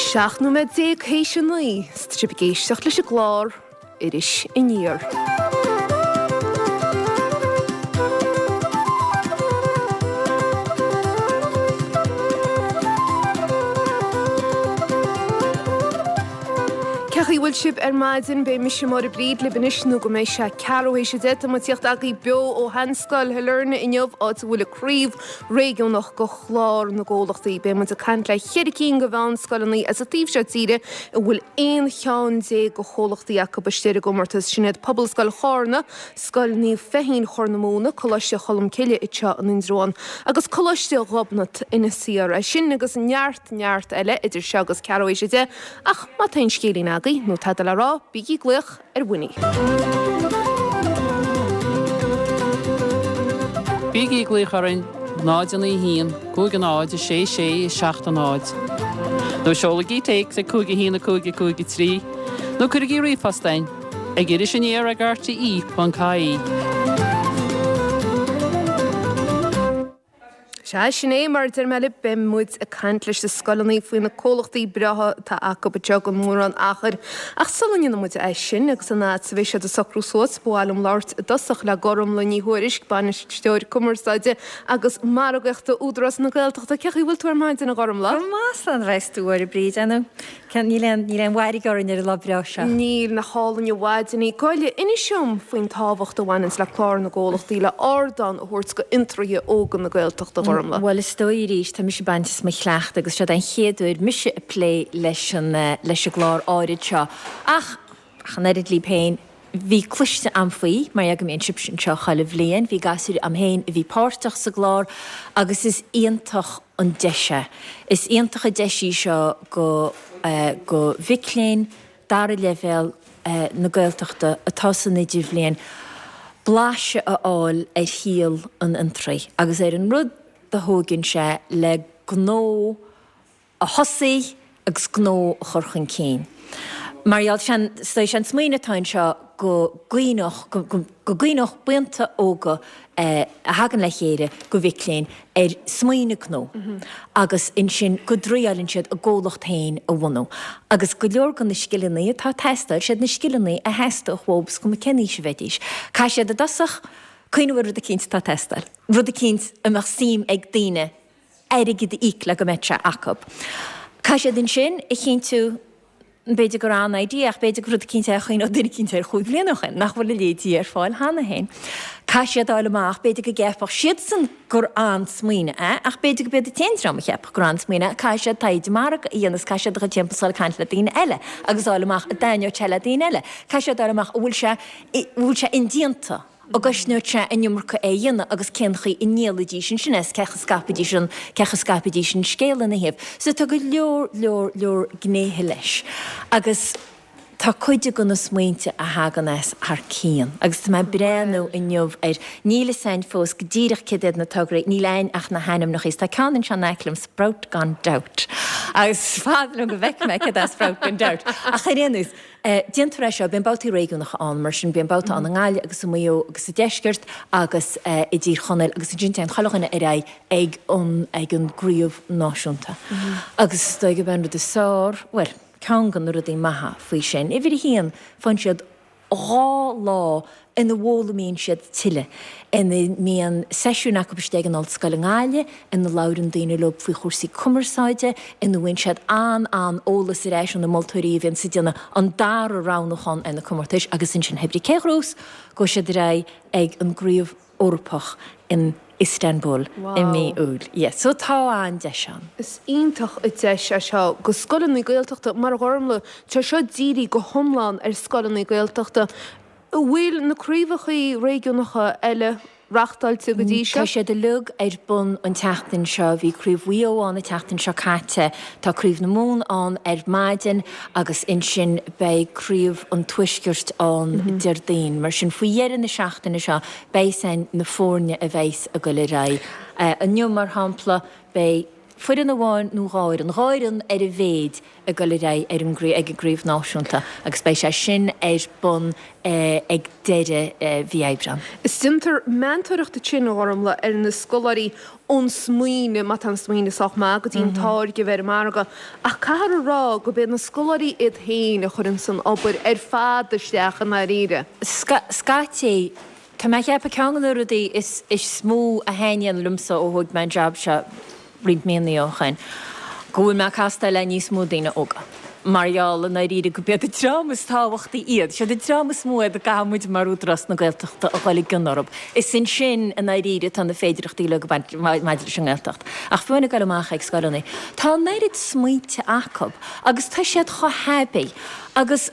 17 nóiméad théis a 9 's tá sibh ag éisteacht leis an gclár Iris Aniar. Cén chaoi a bhfuil sibh ar maidin? Beidh mise Máire Bríd libh anois nó go mbeidh sé ceathrú théis a 10. Tá muid ag tíocht agaibh beo ó Sheanscoil Shailearna inniu, áit a bhfuil an craobh réigiúnach go Chlár na gComhlachtaí. Beidh muid ag caint le cheithre cinn de mheánscoileanna as an taobh seo tíre a bhfuil 11 cheann de chomhlachtaí acu istigh ar an gcomórtas. Sin iad Pobalscoil Chárna, Scoil Naomh Feichín Chorr na Móna, Coláiste Cholmcille anseo in Indreabhán agus Coláiste Ghobnait Inis Oírr. É sin agus neart neart eile idir seo agus ceathrú théis a 10 ach má tá aon scéilín agaibh nó tada le rá, bígí ag glaoch ar Winnie. Bígí ag glaoch orainn 0 9 1 5 0 6 6 7 0 nó seolaigí téacs ag 5 1 5 5 3 nó cuirigí ríomhphost chugainn ag irisaniar ag rte.ie. Sea, sin é, mar a deir mé libh, beidh muid ag caint leis na scoileanna faoi na comhlachtaí breátha atá acu anseo go mórán achair. Ach sula ndéanfaidh muid é sin, agus an fhad is a bheidh siad ag socrú suas, ba mhaith liom labhairt i dtosach le Gormlaith Ní Thuairisg, Bainisteoir Cumarsáide agus Margaíochta Údarás na Gaeltachta. Cén chaoi a bhfuil tú ar maidin, a Ghormlaith? Go maith, slán a bheas tú, a Mháire Bríd. Ar ndóigh, Níl aon, níl aon mhairg orainn ar an lá breá seo. Níl, nach álainn an mhaidin í. Gabh i leith, inis dom faoin tábhacht a bhaineanns le Clár na gComhlachtaí le ardán a thabhairt go fhiontraithe óga na Gaeltachta, a Ghormlaith. Bhuel, is dóigh arís, tá mise ag baint as mo chleachtadh agus seod é an chéad uair mise ag plé leis an, leis an gclár áirid seo. Ach, ach an oiread libh féin, bhí cloiste a'm faoi, mar go mbíonn sibhse anseo chuile bhliain, bhí gasúir a'm féin a bhí páirteach sa gclár agus is iontach an deis é. Is iontach an deis í seo go, go mhic léinn dara leibhéal na Gaeltachta atá san idirbhliain blaiseadh a fháil ar shaol an fhiontraí agus ar an rud a thóigeann sé le gnó a thosaí agus gnó a chur chun cinn. Mar gheall, sé an smaoineamh atá anseo go gcuimhneodh, go gcuimhneodh buíonta óga a thagann le chéile de mhic léinn ar smaoineamh gnó agus ansin go dtriáileann siad a gcomhlacht féin a bhunú. Agus go leor de na scileanna atá ag teastáil, siad na scileanna a theastódh uathu is cuma cén aois a bheidís. Caithfidh siad i dtosach cuimhneamh ar rud eicínt atá ag teastáil, rud eicínt a mbeadh suim ag daoine airgead a íoc le go mbeadh sé acu. Caithfidh siad ansin a chinntiú, b'fhéidir gur an-idea ach b'fhéidir gur rud eicínt é a chuimhneodh duine eicínt air chúig bhliana ó shin, nach bhfuil a leithéidí ar fáil cheana féin. Caithfidh siad a fháil amach, b'fhéidir go gceapfadh siadsan gur an-smaoineamh é ach b'fhéidir go b'iad an t-aon dream a cheapfadh gur an-smaoineamh é. Caithfidh siad taighde margaidh a dhéanamh, caithfidh siad a dhul timpeall is dul ag caint le daoine eile agus a fháil amach an dtaitneodh sé le daoine eile. Caithfidh siad a fháil amach an bhfuil sé, an bhfuil sé indéanta. An gcosnódh sé an iomarca é a dhéanamh agus cén chaoi a ndíolfaidís ansin é, cén chaoi a scaipfidís an, cén chaoi a scaipfidís an scéal ina thaobh. So tá go leor, leor, leor gnéithe leis. Agus tá cuid de na smaointe a thagann as thar cionn. Agus tá mé ag breathnú inniu ar, níl fhios a'inn fós go díreach céard iad na tograí, níl a'inn ach na hainmneacha. Is tá ceann anseo in aice liom, Sprout Gone Doubt. Agus is fada liom go bhfeicfidh mé céard é Sprout Gone Doubt. Ach ar aon nós, Déantar é seo, bíonn babhtaí réigiúnacha ann, mar sin, bíonn babhta ann i nGaillimh agus i Maigh Eo agus sa Deisceart agus i dTír Chonaill agus ansin téann chuile dhuine ar aghaidh ag an ag an gcraobh náisiúnta. Agus is dóigh gurb é an rud is fearr, bhuel, ceann de na rudaí maithe faoi sin, uimhir a haon, faigheann siad 2 lá ina bhfoghlaimíonn siad tuilleadh, ina mbíonn seisiúin acu istigh ag an ollscoil i nGaillimh, ina labhrann daoine leo faoi chúrsaí cumarsáide, ina bhfaigheann siad an-an-eolas ar ais ó na moltóirí a bhíonns ag déanamh an dara roghnúchán ar na comórtais agus ansin hé brí cé ghnós gabhfaidh siad ar aghaidh ag an gCraobh Eorpach in Istanbul i mí Iúil. Yes, so tá an-deis ann. Is iontach an deis é seo go scoileanna Gaeltachta mar a Ghormlaith, tá seo dírithe go hiomlán ar scoileanna Gaeltachta. An bhfuil na craobhacha réigiúnacha eile reachtáilte go dtí seo? Tá siad uilig ar bun an tseachtain seo. Bhí Craobh Mhaigh Eo ann an tseachtain seo caite, tá Craobh na Mumhan ann ar maidin agus ansin beidh Craobh an Tuaiscirt ann Déardaoin. Mar sin faoi dheireadh na seachtaine seo beidh a fhios a'inn na foirne a bheas ag goil ar aghaidh. Inniu mar shampla beidh. foireann amháin nó 2 fhoireann, 2 fhoireann ar a mhéid ag dul ar aghaidh ar an ag an gcraobh náisiúnta agus beidh sé sin ar bun ag deireadh mhí Aibreán. Is déantar meantóireacht ansin, a Ghormfhlaith, ar na scoláirí ón smaoineamh, má tá an smaoineamh sách maith, go dtí an táirge a bheith ar an margadh. Ach caithfear a rá gurb iad na scoláirí iad féin a chuireanns an obair ar fad isteach i ndáiríre. Scaití, tá mé a cheapadh ceann de na rudaí is mó a thaitníonn liomsa ó thóig mé an jab seo roinnt míonna ó shoin, go bhfuil mé ag castáil le níos mó daoine óga. Mar gheall, i ndáiríre, gurb iad an dream is tábhachtaí iad. Siad an dream is mó iad a gcaithfidh muid mar Údarás na Gaeltachta a dhul i gcion orthu. Is ansin, i ndáiríre, atá na féidearthachtaí uilig ag baint maidir leis an nGaeltacht. Ach fiú amháin ag dul amach ag scoileanna, tá an oiread smaointe acu agus tá siad chomh haibí agus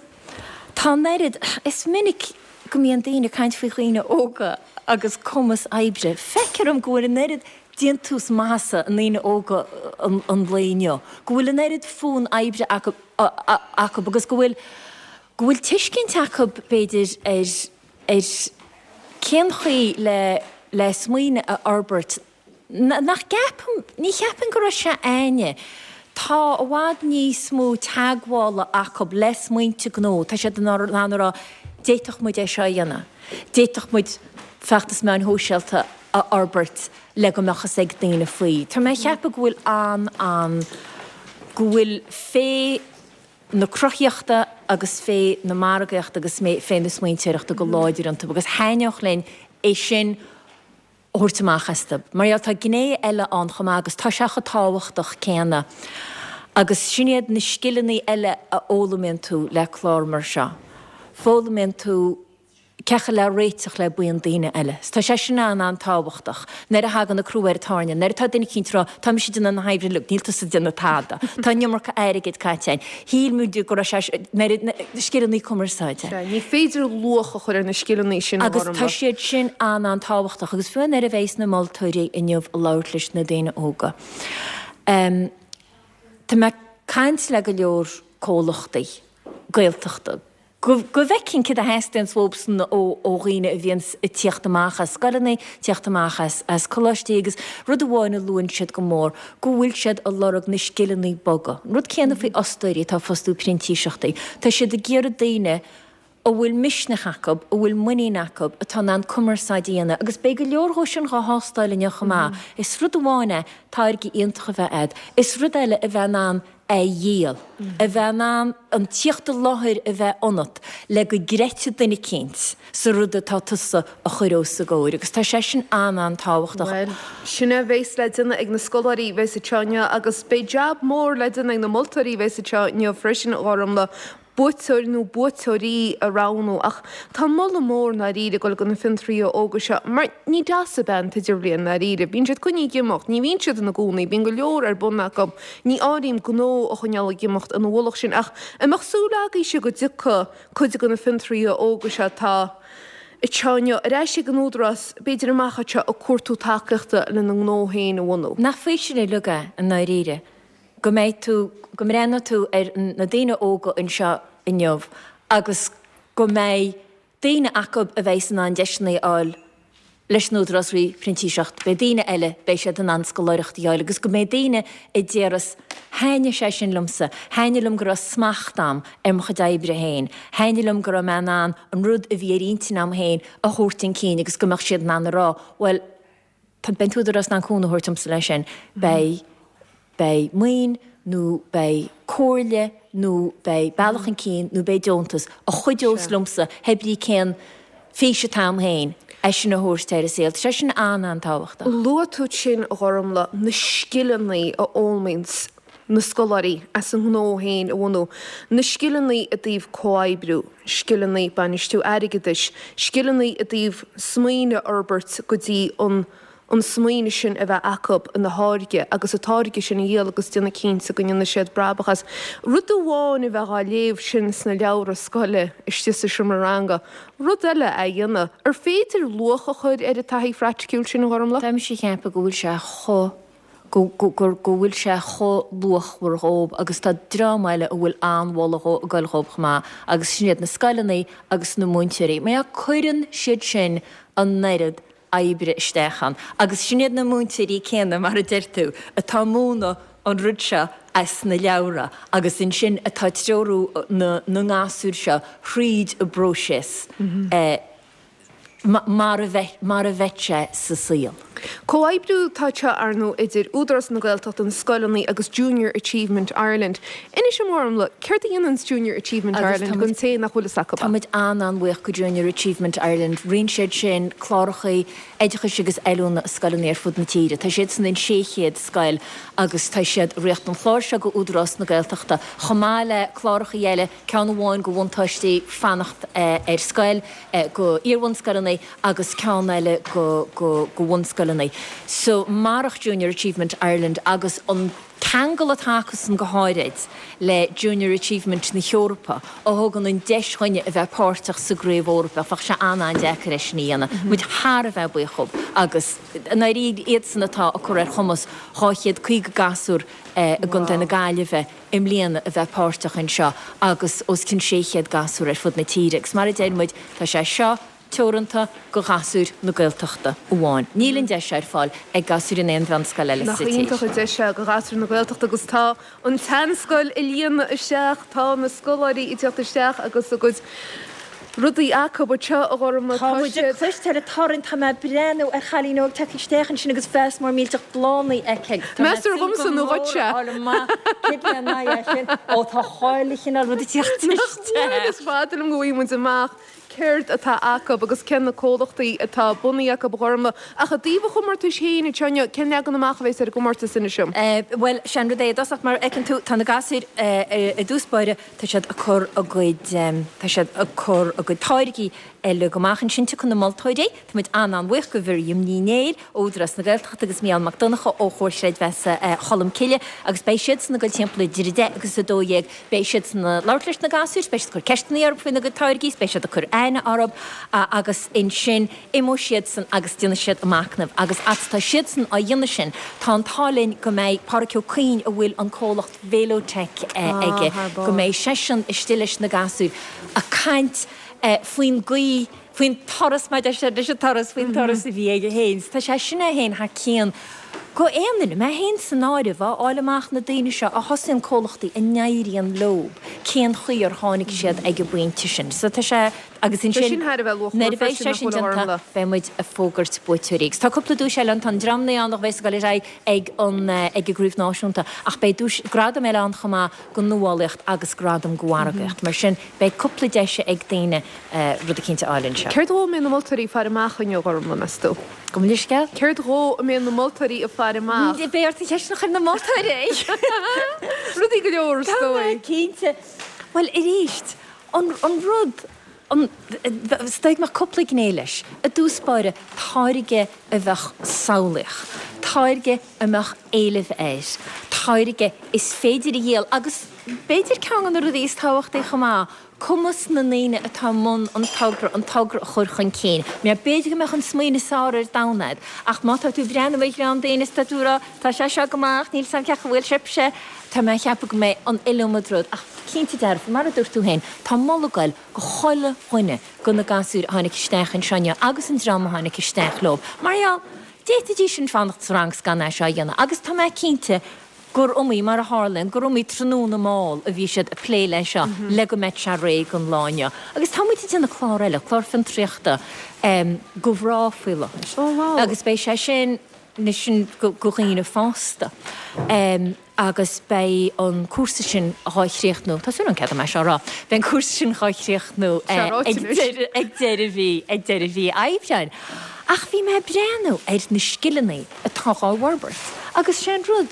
tá an oiread, is minic go mbíonn daoine ag caint faoi dhaoine óga agus cumas oibre. Feictear dom go bhfuil an oiread déantús maitheasa i ndaoine óga an lae inniu, go bhfuil an oiread fonn oibre acu agus go bhfuil, go bhfuil tuiscint acu, b'fhéidir, ar, ar cén chaoi le, le smaoineamh a fhorbairt nach gceapaim, ní cheapaim go raibh sé a'inne. Tá i bhfad níos mó teagmhála acu le smaointe gnó, tá siad in ann a rá, d'fhéadfadh muid é seo a dhéanamh, d'fhéadfadh muid feachtas meáin shóisialta a fhorbairt le go mbeadh fhios ag daoine faoi. Tá mé a cheapadh go bhfuil an, an, go bhfuil féith na cruthaíochta agus féith na margaíochta agus féith na smaointeoireachta go láidir iontu agus thaitneodh linn é sin a thabhairt amach astu. Mar gheall tá gné eile ann chomh maith agus tá sé chomh tábhachtach céanna agus sin iad na scileanna eile a fhoghlaimíonn tú le clár mar seo. Foghlaimíonn tú cén chaoi le réiteach le buíon daoine eile. Tá sé sin an-an-tábhachtach. Nuair a thagann an crú ar an tairne, nuair atá duine eicínt ag rá, tá mise ag déanamh na hoibre uilig, níl tusa ag déanamh tada. Tá an iomarca airgid caite againn. Shíl muid go raibh sé, nuair a, scileanna cumarsáide. Sea, ní féidir luach a chur ar na scileanna sin a Agus tá siad sin an-an-tábhachtach. Agus fiú nuair a bheas na moltóirí inniu ag labhairt leis na daoine óga, tá mé ag caint le go leor comhlachtaí Gaeltachta, go bhfeicfinn céard a theastaíonns uathubsan ó dhaoine a bhíonns ag tíocht amach as scoileanna, tíocht amach as coláistí agus rud amháin a luann siad go mór, go bhfuil siad ag lorg na scileanna boga. An rud céanna faoi fhostóirí atá ag fostú printíseachtaí. Tá siad ag iarraidh daoine a bhfuil misneach acu, a bhfuil muinín acu, atá in ann cumarsáid a dhéanamh agus beidh go leor dhó sin dhá thástáil inniu chomh maith. Is rud amháin é táirge iontach a bheith a'd, is rud eile a bheith in ann a dhíol, a bheith in ann an tíocht i láthair a bheith ionat le go gcreidfidh duine eicínt sa rud atá tusa a chur os a gcomhair agus tá sé sin an-an-tábhachtach. Bhuel, sin é a bheas le déanamh ag na scoláirí a bheas anseo inniu agus beidh jab mór le déanamh ag na moltóirí a bheas anseo inniu freisin, a Ghormfhlaith, buaiteoir nó buaiteoirí a roghnú ach tá moladh mór i ndáiríre ag dul go na fiontraithe óga seo mar ní deas ab ea an t-idirbhliain i ndáiríre. Bíonn siad coinnithe ag imeacht, ní bhíonn siad ina gcónaí, bíonn go leor ar bun acu, ní áirím gnó a choinneáil ag imeacht ina mhullach sin ach an mbeadh súil agaibhse go dtiocfaidh cuid de na fiontraithe óga seo atá anseo inniu ar ais ag an Údarás, b'fhéidir amach anseo ag cuartú tacaíochta lena ngnó féin a bhunú? Nach faoiseamh uilig é i ndáiríre go mbeidh tú, go mbreathnóidh tú ar na daoine óga anseo inniu agus go mbeidh daoine acu a bheidh in ann deiseanna a fháil leis an Údarás faoi phrintíseacht, beidh daoine eile, beidh siad in ann scoláireacht a fháil agus go mbeidh daoine a déarfas, thaitnigh sé sin liomsa, thaitnigh liom go raibh smacht a'm ar mo chuid oibre féin, thaitnigh liom go raibh mé in ann an rud a bhí ar intinn a'm féin a thabhairt chun cinn agus go mbeadh siad in ann a rá, bhuel, Tá, beidh an tÚdarás in ann cúnamh a thabhairt domsa leis sin. Beidh, beidh maoin nó beidh comhairle nó beidh bealach chun cinn nó beidh deontas a chuideos liomsa pé brí cén fís atá a'm féin, é sin a thabhairt ar an saol. Tá sé sin an-an-tábhachtach. Luaigh tú ansin, a Ghormfhlaith, na scileanna a fhoghlaimíonns na scoláirí as a ngnó féin a bhunú, na scileanna i dtaobh comhoibriú, scileanna bainistiú airgeadais, scileanna i dtaobh smaoineamh a fhorbairt go dtí an an smaoineamh sin a bheith acu ina tháirge agus an táirge sin a dhíol agus déanamh cinnte go ndéanfaidh siad brabach as. Rud amháin a bheith á léamh sin sna leabhra scoile istigh sa seomra ranga, rud eile é a dhéanamh. Ar féidir luach a chur ar an taithí phraiticiúil sin, a Ghormfhlaith? Tá mise ag ceapadh go bhfuil sé chomh go go bhfuil sé chomh luachmhar dhóib agus tá dream eile a bhfuil an-mholadh ag goil dhóib chomh maith agus sin iad na scoileanna agus na múinteoirí. Mar cuireann siad sin an oiread. oibre isteach ann. Agus sin iad na múinteoirí céanna, mar a deir tú, atá ag múineadh an rud seo as na leabhra agus ansin atá ag treorú na ngasúr seo thríd an bpróiseas mar a bheadh mar a bheadh sé sa saol. Comhoibriú atá anseo, ar ndóigh, idir Údarás na Gaeltachta, na scoileanna agus Junior Achievement Ireland. Inis dom, a Ghormfhlaith, céard a dhéananns Junior Achievement Ireland don té nach bhfuil fhios acu? Tá muid an-an-bhuíoch go Junior Achievement Ireland. Ritheann siad sin cláracha oideachais agus oiliúna i scoileanna ar fud na tíre. Tá siadsan in 600 scoil agus tá siad ag rith an chlár seo go Údarás na Gaeltachta chomh maith le cláracha eile, ceann amháin go bhuntáistí fanacht ar scoil, go iar-bhunscoileanna agus ceann eile go go go bhunscoileanna. So marach Junior Achievement Ireland agus an ceangal atá acusan go háirid le Junior Achievement na hEorpa a thugann an deis dhuinne a bheith páirteach sa gcraobh Eorpach, bheadh sé an-an-deacair é sin a dhéanamh. Muid thar a bheith buíoch dhób agus i ndáiríre iadsan atá ag cur ar chumas 250 gasúr i gContae na Gaillimhe i mbliana a bheith páirteach anseo agus os cionn 600 gasúr ar fud na tíre agus mar a deir muid, tá sé seo teoranta go ghasúir na Gaeltachta amháin. Níl an deis seo ar fáil ag gasúir in aon mheánscoil eile sa tír. Nach iontach an deis é go ghasúir na Gaeltachta agus tá an tSeanscoil ag líonadh isteach, tá na scoláirí ag teacht isteach agus a gcuid rudaí acu anseo, a Ghormfhlaith. Tá muid ag cloisteáil an torann, tá mé ag breathnú ar chailín óg tagtha isteach ansin agus vás mór millteach bláthanna aici agus tá mé ag Meas tú gur súil go dhomsa nó mór dhuitse? a fháil amach cé lena aghaidh é sin. Ó tá chuile chineál rud ag teacht Nach bhfuil? isteach. Is fada liom go bhfaighidh muid amach céard atá acu agus cé na comhlachtaí atá bunaithe acu, a Ghormfhlaith. Ach i dtaobh an chomórtais féin, anseo inniu, cén leagan amach a bheas ar an gcomórtas, inis dom? Bhuel, sé an rud é i dtosach, mar a fheiceann tú, tá na gasúir i dtús báire, Tá siad ag cur a gcuid, tá siad ag cur a gcuid táirgí uilig amach ansin. Tiocfaidh na moltóirí, tá muid an-an-bhuíoch go Mhiriam Ní Néill ó Údarás na Gaeltachta agus Mícheál Mac Donncha ó Chomhar Chreidmheasa Cholm Cille agus beidh siadsan ag dul timpeall idir 10 agus 12. Beidh siadsan ag labhairt leis na gasúir, beidh siad ag cur ceisteanna orthu faoina gcuid táirgí, beidh siad ag cur aithne orthu agus ansin imeoidh siadsan agus déanfaidh siad a machnamh agus fhad tá siadsan á dhéanamh sin tá an t-ádh linn go mbeidh Pádhraic Ó Cuinn a bhfuil an comhlacht Velotech aige, go mbeidh seisean istigh leis na gasúir ag caint faoin gcaoi, faoin turas, mar a deir siad, leis an turas, faoin turas a bhí aige féin. So tá sé sin é féin thar cionn go aon duine, mé féin san áireamh, a fháil amach na daoine seo a thosaíonn comhlachtaí a n-éiríonn leo, cén chaoi ar tháinig siad ag an bpointe sin. So tá sé, agus ansin nuair a bheidh sé sin déanta, beidh muid ag fógairt buaiteoirí. Agus tá cúpla duais eile ann, tá an dream ann a bheas ag dul ar aghaidh ag an ag an gcraobh náisiúnta ach beidh duais, gradam eile ann chomh maith go nuálaíocht agus gradam go mhargaíocht. Mar sin beidh cúpla deis ag daoine rud eicínt a fháil anseo. Céard dhó a mbeidh na moltóirí ag faire amach inniu, a Ghormfhlaith, meas tú? Gabh mo leithscéal? Céard dhó a mbeidh na moltóirí ag faire amach? Beidh ort an cheist sin a chur ar na moltóirí! Rudaí go leor, is Tá mé dóigh. cinnte. Bhuel, arís, an an rud, an, is dóigh go mbeadh cúpla gné leis. I dtús báire, táirge a bheadh samhlaíoch, táirge a mbeadh éileamh air, táirge is féidir a dhíol agus b'fhéidir ceann de na rudaí is tábhachtaí chomh maith, cumas na ndaoine atá i mbun an togra an togra a chur chun cinn. Mar b'fhéidir go mbeadh an smaoineamh is fearr ar domhan agat ach má tá tú ag breathnú ar dhream daoine is tá tú ag rá tá sé seo go maith ach níl 's a'm cén chaoi a bhfuil sibhse, tá mé ag ceapadh go mbeidh an iliomad rud ach cinnte dearfa, mar a dúirt tú féin, tá moladh ag goil go chuile dhuine go na gasúir a tháinig isteach anseo inniu agus an dream a tháinig isteach leo. Mar gheall, d'fhéadfaidís sin fanacht sa rang 's gan é seo a dhéanamh agus tá mé cinnte gur iomaí, mar a tharlaíonn, gur iomaí tráthnóna mall a bhí siad ag plé leis seo le go mbeadh sé réidh don lá inniu. Agus tá muid ag déanamh clár eile, clár fiontraíochta go mhná faoi láthair agus beidh sé sin, sin go dhaoine fásta. Agus beidh an cúrsa sin dhá chríochnú, tá súil agam cead dom é seo a rá, beidh an cúrsa sin dhá chríochnú ag deireadh mhí, ag deireadh mhí Aibreáin. Ach bhí mé ag breathnú ar na scileanna atá dhá bhforbairt agus sé an rud,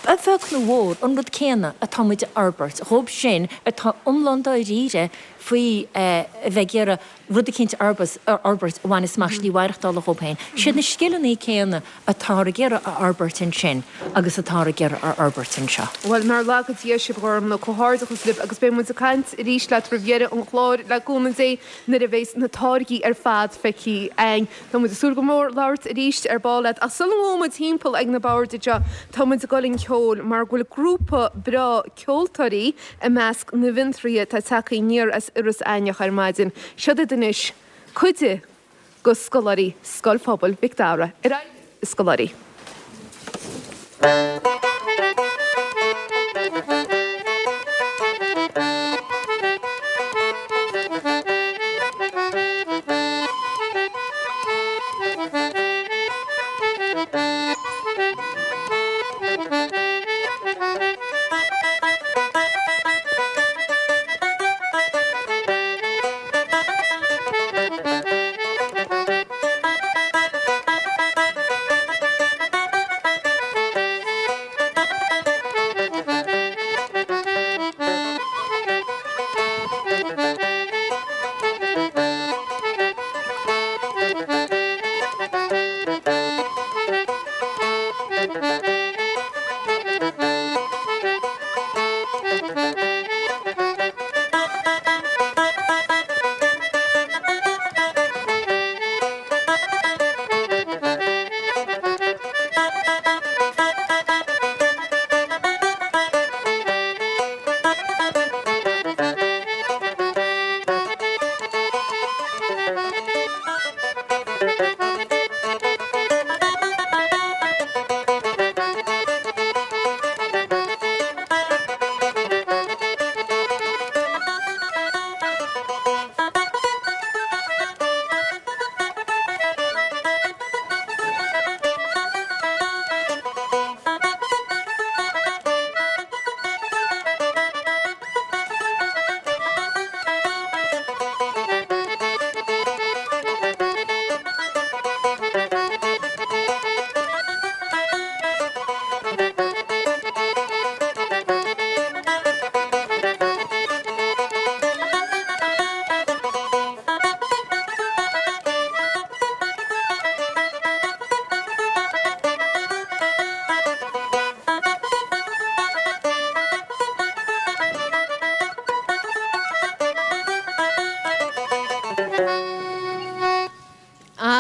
a bheag nó a mhór, an rud céanna atá muid a fhorbairt dhóibh sin atá iomlán dáiríre faoi a bheith ag iarraidh rud eicínt a fhorbairt a bhaineas amach slí mhaireachtála dhóibh féin. Siad na scileanna céanna atáthar ag iarraidh a fhorbairt ansin agus atáthar ag iarraidh a fhorbairt anseo. Bhuel, nár laga Dia sibh, a Ghormfhlaith, comhghairdeachas libh agus beidh muid ag caint arís leat roimh dheireadh an chláir, le cúnamh Dé, nuair a bheas na táirgí ar fad feicthe againn. Tá muid ag súil go mór labhairt arís ar ball leat ach sula ngabhfaidh muid timpeall ag na boird anseo, tá muid ag dul chun ceoil mar go bhfuil grúpa breá ceoltóirí i measc na bhfiontraithe atá tagtha aniar as Iorras Aithneach ar maidin. Siod iad anois, cuid de. go scoláirí Scoil Phobail Mhic Dara. Ar aghaidh libh, a scoláirí.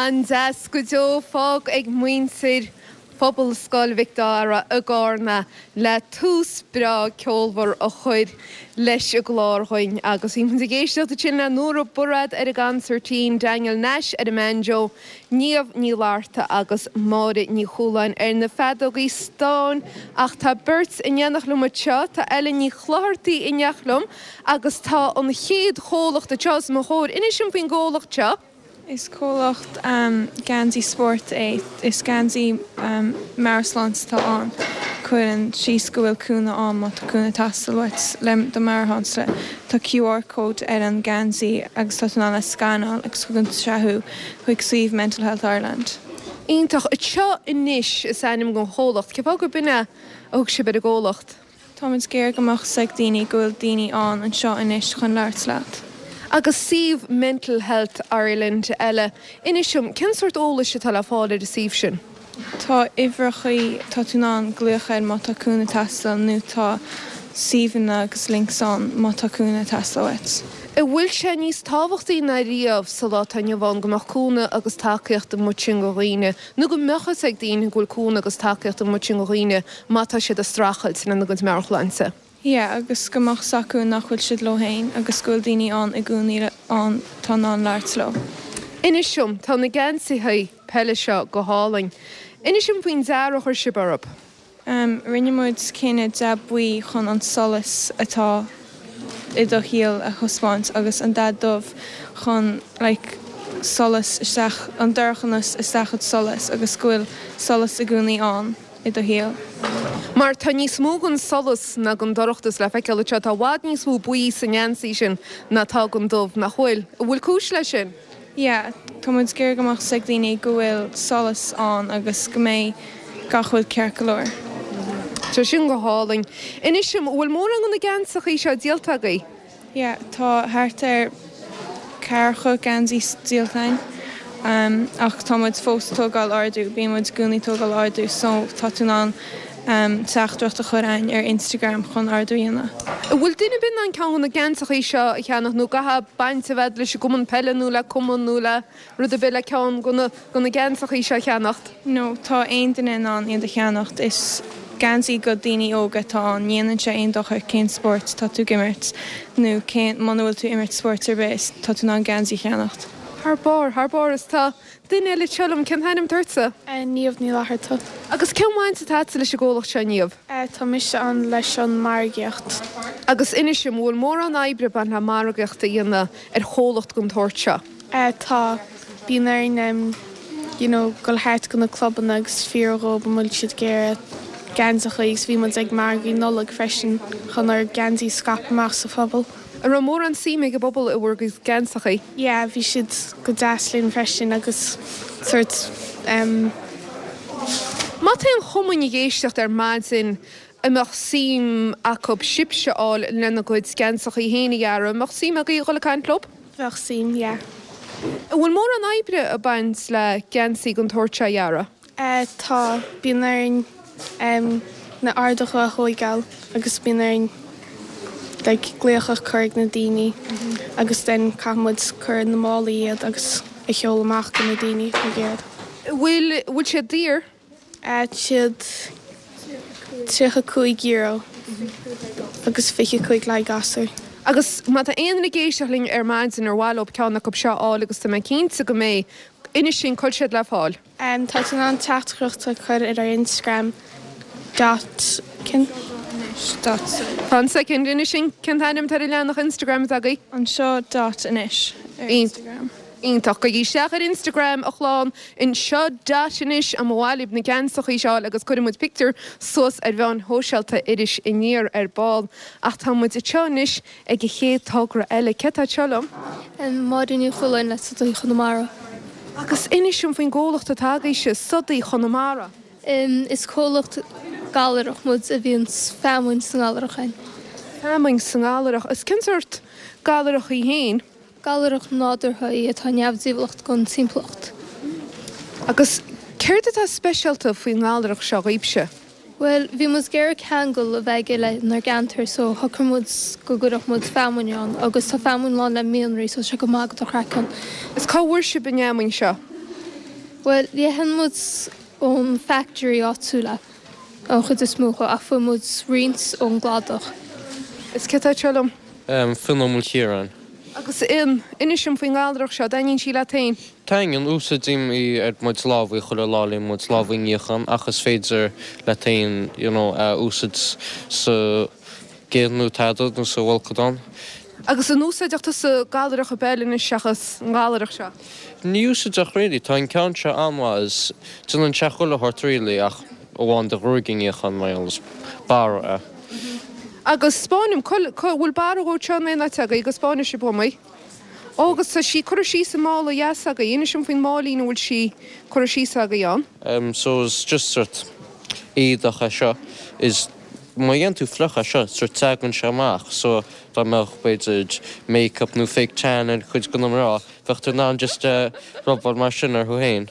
An-deas go deo fágtha ag muintir Phobalscoil Mhic Dara i gCarna le tús breá ceolmhar a chur leis an gclár dhuinn agus bhí muid ag éisteacht ansin le Nóra Bairéad ar an gconsairtín, Daniel Nash ar an mbanjo, Niamh Ní Fhlatharta agus Máire Ní Chualáin ar na feadógaí stáin ach tá beirt in éineacht liom anseo, tá Ellen Ní Chlochartaigh in éineacht liom agus tá an chéad chomhlacht anseo os mo chomhair. Inis dom faoin gcomhlacht seo. Is comhlacht geansaí spóirt é. Is geansaí meabhairshláinte atá ann. Cuireann síos go bhfuil cúnamh ann má tá cúnamh ag teastáil uait le do mheabhairshláinte. Tá QR code ar an geansaí agus tá tú in ann é a scanáil agus tugann sé thú chuig suíomh Mental Health Ireland. Iontach. Anseo Anois is ainm don chomhlacht. Cén fáth gurb in é a thug sibh ar an gcomhlacht? Táimid ag iarraidh go mbeadh 's ag daoine go bhfuil daoine ann anseo anois chun labhairt leat. Agus suíomh Mental Health Ireland eile. Inis dom, cén sórt eolais atá le fáil ar an suíomh sin? Tá uimhreachaí, tá tú in ann glaoch air má tá cúnamh ag teastáil nó tá suíomhanna agus links ann má tá cúnamh ag teastáil uait. An bhfuil sé níos tábhachtaí ná riamh sa lá atá inniu ann go mbeadh cúnamh agus tacaíocht amuigh ansin do dhaoine, nó go mbeadh fhios ag daoine go bhfuil cúnamh agus tacaíocht amuigh ansin do dhaoine má tá siad ag streachailt lena gcuid meabhairshláinte? Yeah, agus go mbeadh 's acu nach bhfuil siad leo féin agus go bhfuil daoine ann i gcónaí ann atá in ann labhairt leo. Inis dom, tá na geansaithe peile seo go hálainn. Inis dom faoin dearadh a chuir sibh orthu. Rinne muid cinneadh dath buí chun an solas atá i do shaol a thaispeáint agus an dath dubh chun like solas isteach, an dorchanas isteach i solas agus go bhfuil solas i gcónaí ann i do shaol. Mar tá níos mó den solas ná den dorchadas le feiceáil anseo. Tá i bhfad níos mó buí sa ngeansaí sin ná atá den dubh, nach bhfuil? An bhfuil cúis leis sin? Yeah, tá muid ag iarraidh go mbeadh 's ag daoine go bhfuil solas ann agus go mbeidh gach rud ceart go leor. Tá sin go hálainn. Inis dom, an bhfuil mórán de na geansachaí seo díolta agaibh? Yeah, tá thart ar ceathracha geansaí díolta againn ach tá muid fós ag tógáil ordú, bíonn muid i gcónaí ag tógáil ordú so tá tú in ann teachtaireacht a chur againn ar Instagram chun ordú a dhéanamh. An bhfuil duine ar bith in ann ceann de na geansachaí seo a cheannach nó caithfidh baint a bheith leis an gcumann peile nó le cumann nó le rud ar bith le ceann de na geansachaí seo a cheannacht? No, tá aon duine in ann iad a cheannacht. Is geansaí go daoine óga atá ann. Ní dhéanann sé aon dochar cén spórt tá tú ag imirt nó cén, muna bhfuil tú ag imirt spóirt ar bith, tá tú in ann geansaí a cheannacht. Thar barr, thar barr. Is tá duine eile anseo liom, cén t-ainm atá ortsa? Niamh Ní Fhlatharta. Agus cén bhaint atá agatsa leis an gcomhlacht seo, Niamh? Tá mise ann leis an margaíocht. Agus inis dom, an bhfuil mórán oibre ag baint le margaíocht a dhéanamh ar chomhlacht den tsórt seo? Tá. Bíonn orainn you know dul thart go na clubanna agus fiafraí dhóibh an bhfuil siad ag iarraidh geansachaí agus bhí muid ag margaí Nollag freisin chun ár geansaí a scaipeadh amach sa phobal. An raibh mórán suime ag an bpobal i bhur gcuid geansachaí? Yeah, bhí siad go deas linn freisin agus sort em. Má tá aon chumainn ag éisteacht ar maidin a mbeadh suim acu sibhse a fháil lena gcuid geansachaí féin a dhearadh, an mbeadh suim agaibh a dhul ag caint leo? Bheadh suim, yeah. An bhfuil mórán oibre ag baint le geansaí den tsórt seo a dhearadh? Eh, tá. Bíonn orainn em na orduithe a thóigeáil agus bíonn orainn like glaoch a chur ag na daoine agus then caithfidh muid cur ina málaí iad agus a sheoladh amach go na daoine atá ag iarraidh. An bhfuil, bhfuil siad daor? Tá siad €35 agus 25 le haghaidh gasúir. Agus má tá aon duine ag éisteacht linn ar maidin ar mhaith leo ceann acu seo a fháil agus tá mé cinnte go mbeidh, inis dúinn cá bhfuil siad le fáil. Tá tú in ann teachtaireacht a chur ar ár Instagram dot cén dot. Fan soicind, inis dúinn cén t-ainm atá ar an leathanach Instagram atá agaibh. Anseo dot anois ar Instagram. Iontach. Gabhaigí isteach ar Instagram, a chlann, anseo dot anois má mhaith libh na geansachaí seo a fháil agus cuirfidh muid pictiúr suas ar mheáin shóisialta Iris Aniar ar ball. Ach tá muid anseo anois ag an chéad togra eile. Cé atá anseo liom? Máire Ní Chualáin le Sodaí Chonamara. Agus inis dom faoin gcomhlacht atá agaibhse, Sodaí Chonamara. Is comhlacht gallarach muid a bhíonn feamainn sa ngallarach againn. Feamainn sa ngallarach. Is cén sórt gallarach í féin? Gallarach nádúrtha í atá neamhdhíobhálach don timpeallacht. Agus céard atá speisialta faoin ngallarach seo dhaoibhse? Bhuel, bhí muid ag iarraidh ceangal a bheith aige lenár gceantar so shocraigh muid go gcuirfeadh muid feamainn ann agus tá feamainn lán le mianraí so tá sé go maith do chraiceann. Is cá bhfuair sibh an fheamainn seo? Bhuel, itheann muid ón factory áitiúil é an chuid is mó ach fuair muid roinnt ón gcladach. Is cé atá anseo liom? Fionn Ó Maoilchiaráin. Agus Fhionn, inis dom faoin ngallarach seo, dtaitníonn sí leat féin? Taitníonn, úsáidim í ar mo chuid lámhaí chuile lá le mo chuid lámhaí a níochán ach is féidir leat féin you know a úsáid sa gcith nó tada nó sa bhfolcadán. Agus an úsáideadh tusa gallarach ar bith eile anois seachas an ghallarach seo? Ní úsáideach really, tá an ceann seo an-mhaith is déanann sé chuile shórt really ach amháin do ghruaig a níochán mar gheall is barra é. Agus 'spáin dom, cá bhfuil barra dhó anseo in aon áit agaibh go 'spáinfidh sibh dhom í. Ó, agus tá sí curtha síos i mála dheas agaibh, inis dom faoin máilín a bhfuil sí curtha síos agaibh ann. Em, so is just sort éadach é seo, is má dhéanann tú fliuch é seo, sort teagann sé amach, so dá mbeadh b'fhéidir make-up nó fake tan ar chuid de na mná, bheadh tú in ann just eh rubáil mar sin orthu féin.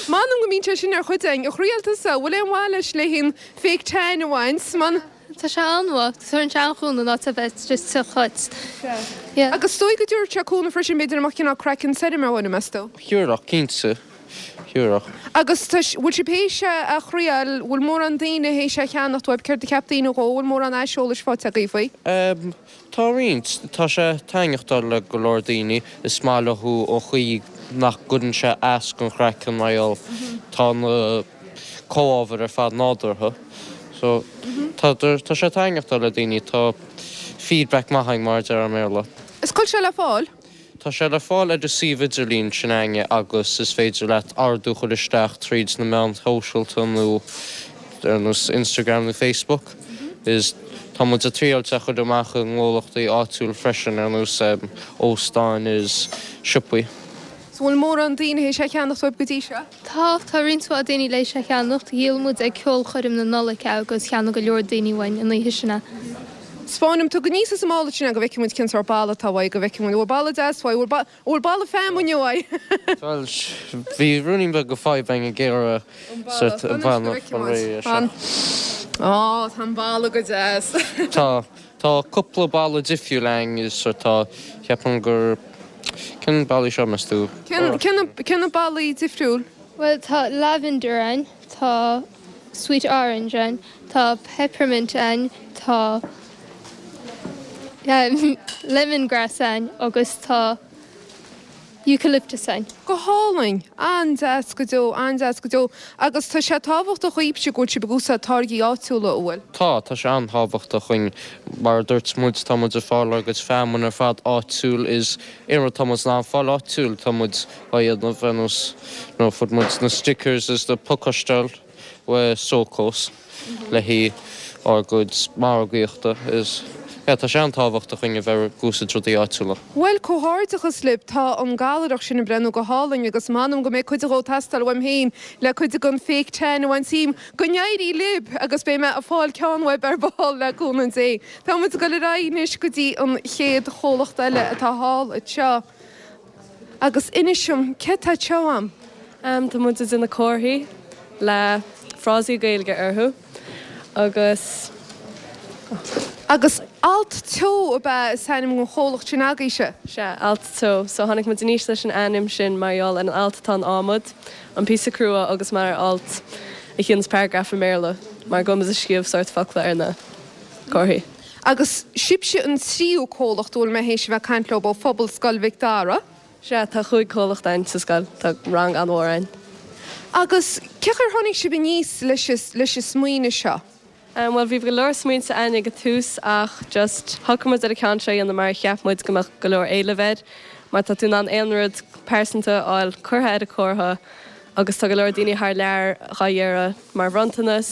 M'anam go mbíonn sé sin ar chuid againn. A thriail tusa, bhfuil aon mhaith leis le haghaidh an fake tan a bhaint? Man. Tá sé an-mhaith. Tugann sé an-chúnamh in áit a bheith just te dhuit. Yeah. Agus is dóigh go dtabharfadh sé cúnamh freisin, b'fhéidir, dá mbeadh cineál craiceann tirim ar dhuine, meas tú? Thiúrfadh, cinnte. Thiúrfadh. Agus tá, bhfuil sibh théis é a thriail, bhfuil mórán daoine théis é a cheannacht uaibh, céard a cheap daoine dhó, bhfuil mórán aiseolais faighte agaibh faoi? Em, tá roinnt. Tá sé ag taitneachtáil le go leor daoine. Is maith leo an chaoi nach gcuireann sé as don chraiceann mar gheall tá na. comhábhair ar fad nádúrtha. So, tá, tá sé ag taitneachtáil le daoine, tá feedback maith againn mar a déarfá i mBéarla. Is cá bhfuil sé le fáil? Tá sé le fáil ar an suíomh idirlín sin againne agus is féidir leat ordú a chur isteach tríd na meáin shóisialta nó ar nós Instagram nó Facebook. Is tá muid ag triáilt é a chur amach i ngnólachtaí áitiúil freisin ar nós óstáin is siopaí. So bhfuil mórán daoine théis é a cheannacht uaibh go dtí seo? Tá, tá roinnt mhaith daoine théis é a cheannacht. Dhíol muid ag ceolchoirm na Nollag é agus cheannaigh go leor daoine uainn an oíche sin é. 'Spáin dom, tóg aníos as an mála sin é go bhfeicfidh muid cén sórt bala atá uaidh, go bhfeicfidh muid, an bhfuil bala deas uaidh, an bhfuil, an bhfuil bala feamainne uaidh? Bhuel, bhí ruainnín beag de fadhb againn ag iarraidh sórt An bala, fan anois go bhfeicfidh muid, fan. Á, tá an bala go deas. Tá. Tá cúpla bala difriúil againn is sort tá, ceapaim gur, cén balaí seo meas tú? Cén, cén na, cén na balaí difriúil? Bhuel tá lavender ann, tá sweet orange ann, tá peppermint ann, tá lemongrass ann agus tá. Eucalyptus againn. Go hálainn! An-deas go deo, an-deas go deo. Agus tá sé tábhachtach dhaoibhse go bhfuil sibh ag úsáid táirgí áitiúla, an bhfuil? Tá, tá sé an-tábhachtach dhuinn. Mar a dúirt muid, tá muid ag fáil ár gcuid feamainn ar fad áitiúil is aon rud tá muid in ann fáil áitiúil tá muid á dhéanamh ar nós you know fuair muid na stickers is na pacáistíocht uaidh Sokos le haghaidh ár gcuid margaíochta is yeah tá sé an-tábhachtach dhuinn a bheith ag úsáid rudaí áitiúla. Bhuel, comhghairdeachas libh, tá an gallaireacht sin ag breathnú go hálainn agus m'anam go mbeidh cuid dhó ag teastáil uaim féin le cuid den fake tan a bhaint díom. Go n-éirí libh agus beidh mé ag fáil ceann uaibh ar ball le cúnamh Dé. Tá muid ag dul ar aghaidh anois go dtí an chéad chomhlacht eile atá thall anseo. Agus inis dom, céard tá anseo a'm? Tá muid ag déanamh comharthaí le frásaí Gaeilge orthu agus. Agus Alt Teo ab ea is ainm don chomhlacht sin agaibhse? Sea, Alt Teo. So tháinig muid aníos leis an ainm sin mar gheall ar an alt atá in adhmad, an píosa crua agus mar alt a chiallaíonns paragraph i mBéarla mar go bhfuil muid ag scríobh sórt focla ar na comharthaí. Agus sibhse an tríú comhlacht a bhfuil mé théis a bheith ag caint leo ó phobal Scoil Mhic Dara. Sea, tá chúig chomhlacht againn sa scoil, tá rang an-mhór againn. Agus cén chaoi ar tháinig sibh aníos leis leis an smaoineamh seo? Bhuel, bhí go leor smaointe againn ag an tús ach just shocraigh muid ar an ceann seo a dhéanamh mar cheap muid go mbeadh go leor éilimh air mar tá tú in ann aon rud pearsanta a fháil curtha ar an comhartha agus tá go leor daoine thar lear dhá iarraidh mar bhronntanas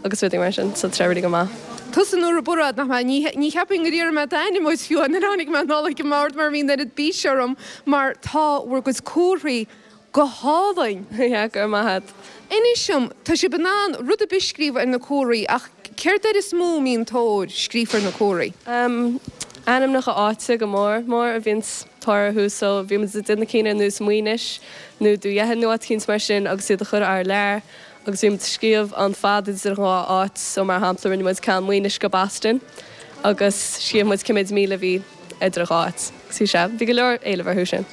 agus rudaí mar sin so tá sé really go maith. Tusa Nóra Bairéad, nach mbeadh? Ní, ní cheapfainn gur iarr mé d'ainm uait fiú nuair a tháinig mé anall ag an mbord mar bhí an oiread bíse orm mar tá bhur gcuid comharthaí go hálainn. Yeah, go raibh maith a't. Inis dom, tá sibh in ann rud ar bith a scríobh ar na comharthaí ach céard air is mó a mbíonn tóir scríofa ar na comharthaí? Em, ainmneacha áite go mór mór a bhíonns tóir orthu so bhí muid ag déanamh cinn ar nós Maínis nó Dún Dheathain nó áit eicínt mar sin agus iad a chur thar lear agus bhí muid ag scríobh an fad idir an dhá áit so mar shampla rinne muid ceann Maínis go Boston agus scríobh muid cé méid míle a bhí idir an dhá áit agus bhí sé, bhí go leor éileamh orthu sin.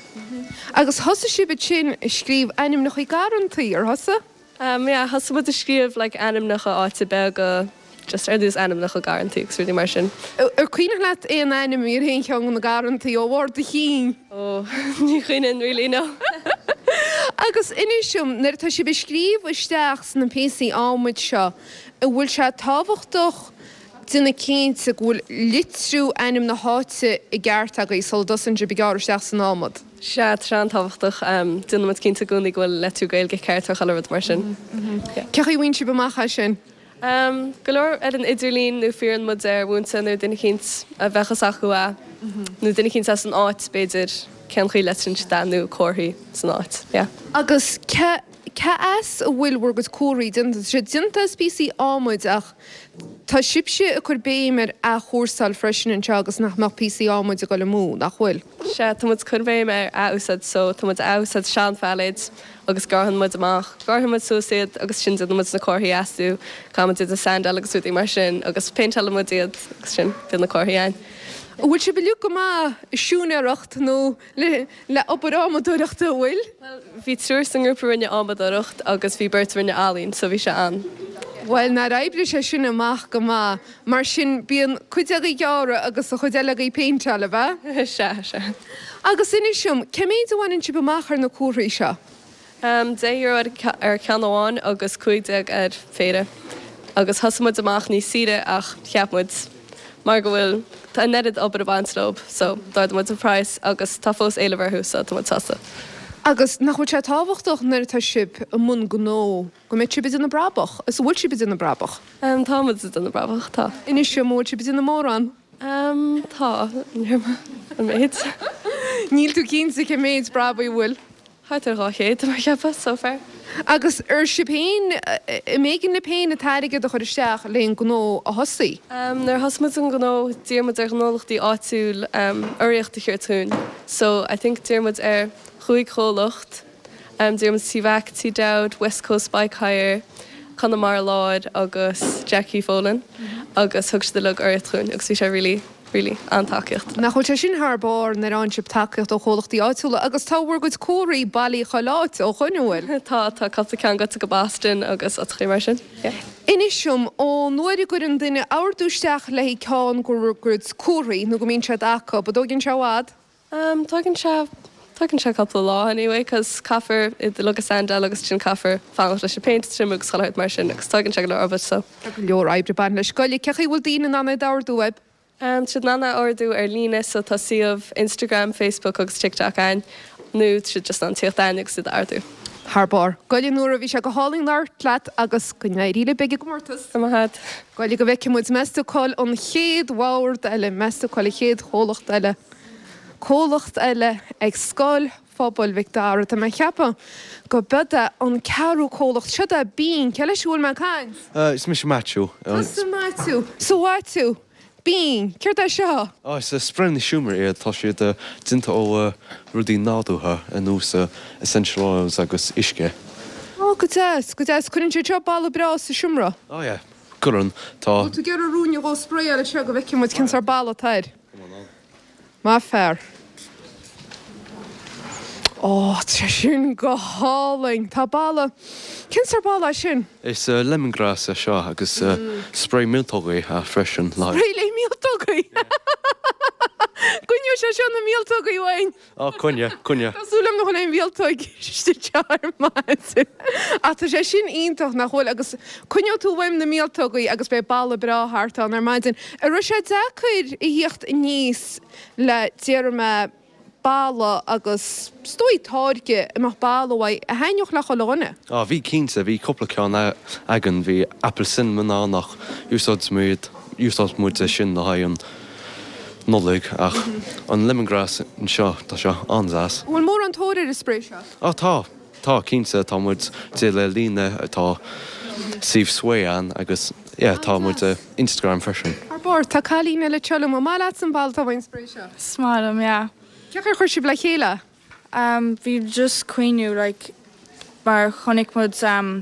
Agus thosaigh sibh ansin ag scríobh ainmneacha garrantaí, ar thosaigh? Em yeah, thosaigh muid ag scríobh like ainmneacha áite beaga, just ar nós ainmneacha garrantaí agus rudaí mar sin. Ar cuimhneach leat aon ainm a bhí ar aon cheann de na garrantaí ó bharr do chinn? Oh, ní chuimhním really, no. Agus inis dom, nuair atá sibh ag scríobh isteach sna píosaí adhmaid seo, an bhfuil sé tábhachtach déanamh cinnte go bhfuil litriú ainm na háite i gceart agaibh sula dtosaíonn sibh ag gearradh isteach san adhmad? Sea, tá sé an-tábhachtach. Déanann muid cinnte i gcónaí go bhfuil litriú Gaeilge ceart ar chuile rud mar sin. Cén chaoi a bhfaigheann sibh amach é sin? Go leor ar an idirlíon nó fiafraíonn muid ar mhúinteoir nó duine eicínt a bheadh fhios acu é nó duine eicínt as an áit b'fhéidir cén chaoi a litríonn siad é nó comharthaí san áit. Yeah. Agus cé cé as a bhfuil bhur gcuid comharthaí déanta? Tá siad déanta as píosaí adhmaid ach tá sibhse ag cur béim ar athchúrsáil freisin anseo agus nach mbeadh píosaí adhmaid ag dul amú, nach bhfuil? Sea, tá muid ag cur béim ar athúsáid so tá muid ag athúsáid sean-phailéid agus gearrann muid amach, gearrann muid suas iad agus sin déanann muid na comharthaí astu, caithfidh muid iad a sandáil agus rudaí mar sin agus péinteálann muid iad agus sin, bíonn na comharthaí againn. An bhfuil sibh uilig go maith i siúinéireacht nó le le obair adhmadóireachta, an bhfuil? Bhuel, bhí triúr sa ngrúpa a rinne adhmadóireacht agus bhí beirt a rinne ealaín so bhí sé an. Bhuel, nár oibrigh sé sin amach go maith. Mar sin, bíonn cuid agaibh ag gearradh agus an chuid eile agaibh ag péinteáil, ab ea? Sea, sea. Agus inis dom, cé méid a bhaineann sibh amach ar na comharthaí seo? €10 ar cheann amháin agus 15 ar phéire. Agus thosaigh muid amach níos saoire ach cheap muid mar go bhfuil an oiread obair ag baint leo so d'ardaigh muid an praghas agus tá fós éileamh orthu so tá muid sásta. Agus nach bhfuil sé tábhachtach nuair atá sibh i mbun gnó go mbeidh sibh ag déanamh brabach? Is an bhfuil sibh ag déanamh brabach? Tá muid ag déanamh brabach, tá. Inis dom, an bhfuil sibh ag déanamh mórán? Tá, an méid. Níl tú cinnte cé méid brabaigh a bhfuil? Thart ar 200, mar cheapfá, so far. Agus ar sibh féin, an mb'éigean libh féin an t-airgead a chur isteach le an gnó a thosaí? Nuair a thosaigh muid an gnó, d'iarr muid ar ghnólachtaí áitiúil urraíocht a thabhairt dhúinn. So, I think d'iarr muid ar chúig chomhlacht, d'iarr muid Tí Mhac, Tí Dowd, West Coast Bike Hire, Conamara Láir agus Jackie Folan agus thug siad uilig urraíocht dhúinn agus bhí sé really really an-tacaíocht. Nach bhfuil sé sin thar barr nuair a fhaigheann sibh tacaíocht ó chomhlachtaí áitiúla agus tá bhur gcuid comharthaí bailithe chuile áit ó shoin, an bhfuil? Tá, tá cúpla ceann gaibhte go Boston agus áiteachaí mar sin, yeah. Inis dom, ón uair a gcuireann duine ordú isteach le haghaidh ceann de bhur gcuid comharthaí nó go mbíonn siad acu, an dtóigeann sé i bhfad? Tógann sé. Tógann sé cúpla lá anyway cos caithfear iad uilig a sandáil agus ansin caithfear fanacht leis an péint a triomú agus chuile shórt mar sin agus tógann sé go leor obair so. Tá go leor oibre ag baint leis. Goile, cé chaoi a bhfuil daoine in ann é d'ordú uaibh? Tá siad in ann é a ordú ar líne so tá suíomh Instagram, Facebook agus TikTok againn nó tá siad just in ann tíocht againn agus iad a ordú. Thar barr. Goile Nóra, bhí sé go hálainn labhairt leat agus go n-éirí libh ag an gcomórtas. Go raibh maith agat. Goile go bhfeicfidh muid, meas tú cá'il an chéad bhord eile, meas tú cá'il an chéad chomhlacht eile, comhlacht eile ag Scoil Phobail Mhic Dara. Tá mé ag ceapadh go b'iod é an ceathrú comhlacht. Siod é Bean. Cé leis a bhfuil mé ag caint? Is mise Maitiú. Tusa Maitiú. So Mhaitiú, Bean, céard é seo? Is spraenna seomra iad. Tá siad déanta ó rudaí nádúrtha ar nós essential oils agus uisce. Ó, go deas, go deas. Cuireann siad seo boladh breá sa seomra. Ó yeah, cuireann. Tá. Bhfuil tú ag iarraidh ruainne dhó spraeáil anseo go bhfeicfidh muid cén sórt boladh atá air? Maith fear. Ó, tá sé sin go hálainn. Tá boladh. Cén sórt boladh é sin? Is lemongrass é seo agus spray míoltógaí freisin. Spray le míoltógaí? Coinneoidh sé seo na míoltógaí uainn. Á, coinne, coinne. Tá súil agam nach bhfuil aon mhíoltóg istigh anseo ar maidin. Ach tá sé sin iontach, nach bhfuil? Agus coinneoidh tú uaim na míoltógaí agus beidh boladh breá thart ann ar maidin. An raibh sé deacair a thíocht aníos le, déarfaidh mé, boladh agus, is dóigh, táirge a mbeadh boladh uaidh a thaitneodh le chuile dhuine? Á, bhí cinnte, bhí cúpla ceann againn, bhí apple cinnamon ann ach úsáid muid, úsáid muid é sin le haghaidh an Nollaig ach an lemongrass anseo, tá sé an-deas. An bhfuil mórán tóir ar an spray seo? Á tá, tá cinnte, tá muid díol ar líne, tá suíomh Sway ann agus yeah tá muid ar Instagram freisin. Thar barr, tá cailín eile anseo liom, an maith leatsa an boladh atá uaidh an spray seo? Is maith liom, yeah. Cén chaoi ar chuir sibh le chéile é? Bhí just cuimhniú like mar chonaic muid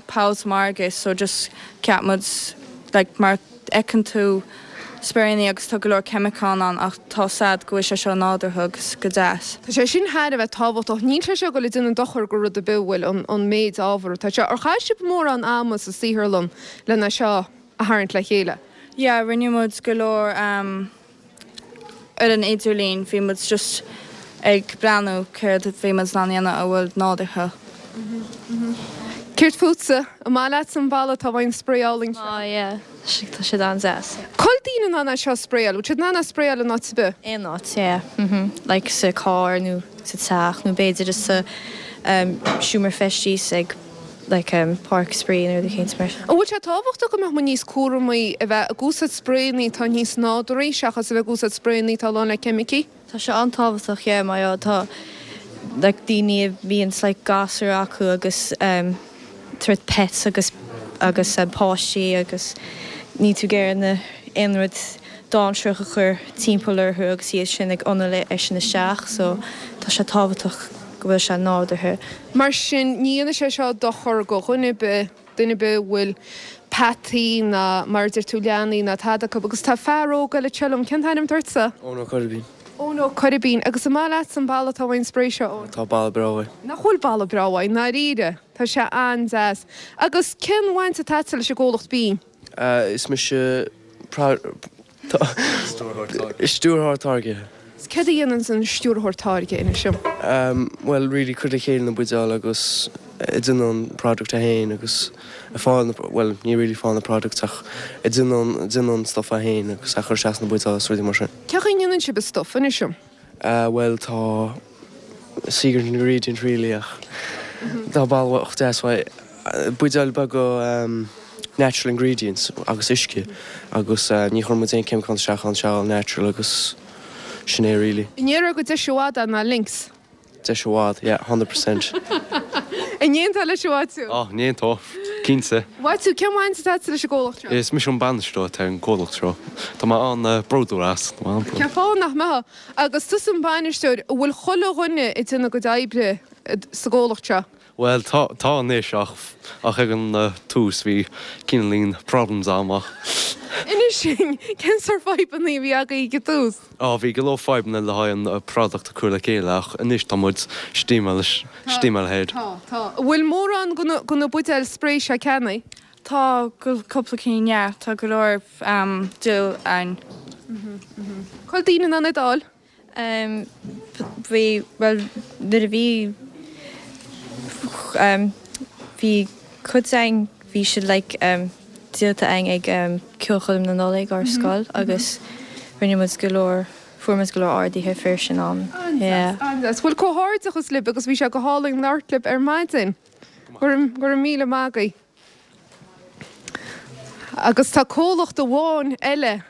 poll sa margadh so just cheap muid like mar fheiceann tú sprayannaí agus tá go leor ceimiceán ann ach tá sad go bhfuil sé seo nádúrtha agus go deas. Tá sé sin thar a bheith tábhachtach. Níl sé seo ag dul ag déanamh dochar go rud ar bith, bhfuil, an méid ábhar atá anseo. Ar chaith sibh mórán ama sa saotharlann lena seo a tharraingt le chéile? Yeah, rinne muid go leor ar an idirlíon, bhí muid just ag breathnú céard a bhí muid in ann a dhéanamh a bhfuil nádúrtha. Céard fútsa? An maith leatsa an boladh atá uaidh an spray álainn seo? Tá, yeah. Tá siad an-deas. Cá bhfuil daoine in ann é seo a spraeáil? Bhfuil siad in ann é a spraeáil in áit ar bith? Aon áit, yeah. Like sa carr nó sa teach nó b'fhéidir sa seomra feistis ag like páirc spraoi nó rud éicint mar sin. An bhfuil sé tábhachtach go mbeadh muid níos cúramaí a bheith ag úsáid spraenna atá níos nádúraí seachas a bheith ag úsáid spraenna atá lán le ceimicí? Tá sé an-tábhachtach yeah mar gheall tá like daoine a bhíonns like gasúir acu agus em sort pets agus agus em páistí agus níl tú ag iarraidh na aon rud dainséarach a chur timpeall orthu agus iad sin ag análú é sin isteach so tá sé tábhachtach go bhfuil sé nádúrtha. Mar sin, ní dhéanfaidh sé seo dochar go dhuine ar bith, duine ar bith a bhfuil peataí ná, mar a deir tú, leanaí ná tada acu. Agus tá fear óg eile anseo liom, cén t-ainm atá ortsa? Eoin Ó Coirbín. Eoin Ó Coirbín. Agus an maith leatsa an boladh atá uaidh an spray seo, Eoin? Tá boladh breá uaidh. Nach bhfuil boladh breá uaidh, i ndáiríre. Tá sé an-deas. Agus cén bhaint atá agatsa leis an gcomhlacht Bean? Is mise Stiúrthóir Táirgthe. Is céard a dhéananns an Stiúrthóir Táirgthe, inis dom? Bhuel, really cur le chéile na buidéal agus ag déanamh an product é féin agus ag fáil na, bhuel, ní really fáil na products ach ag déanamh an, déanamh an stuff é féin agus a chur isteach sna buidéal agus rudaí mar sin. Cén chaoi a ndéanann sibh an stuff, inis dom? Bhuel, tá secret ingredient really ach tá boladh deas uaidh. Buidéil beaga natural ingredients agus uisce agus ní chuireann muid aon ceimiceán isteach ann, sé all natural agus sin é really. An ndéarfá gur deise i bhfad é ná Lynx? Deise i bhfad, yeah, 100%. An n-aontófá leis a Mhaitiú? Á, n-aontódh, cinnte. Mhaitiú, cén bhaint atá agatsa leis an gcomhlacht seo? Is mise an bainisteoir atá ar an gcomhlacht seo. Tá mé an-bhródúil as. Tá mé an-bhródúil. Cén fáth nach mbeifeá? Agus tusa an bainisteoir, an bhfuil chuile dhuine ag déanamh a gcuid oibre sa gcomhlacht seo? Bhuel, tá, tá anois ach, ach ag an tús bhí cineáilín problems a'm ach. Inis dúinn, cén sórt fadhbanna a bhí agaibh ag an tús? Á, bhí go leor fadhbanna le haghaidh an product a chur le chéile ach anois tá muid steaming, steaming ahead. Tá, tá. An bhfuil mórán de na buidéil spray seo ceannaithe? Tá, cúpla cinn, yeah. Tá go leor díol ann. Cá bhfuil daoine in ann iad a fháil? Bhí, bhuel, nuair a bhí, bhí cuid againn, bhí siad like díolta againn ag ceolchoirm na Nollag ár scoil agus rinne muid go leor, fuair muid go leor orduithe fir sin am. An-deas, an-deas. Bhuel, comhghairdeachas libh agus bhí sé go hálainn labhairt libh ar maidin. Go raibh míle maith agaibh. Agus tá comhlacht amháin eile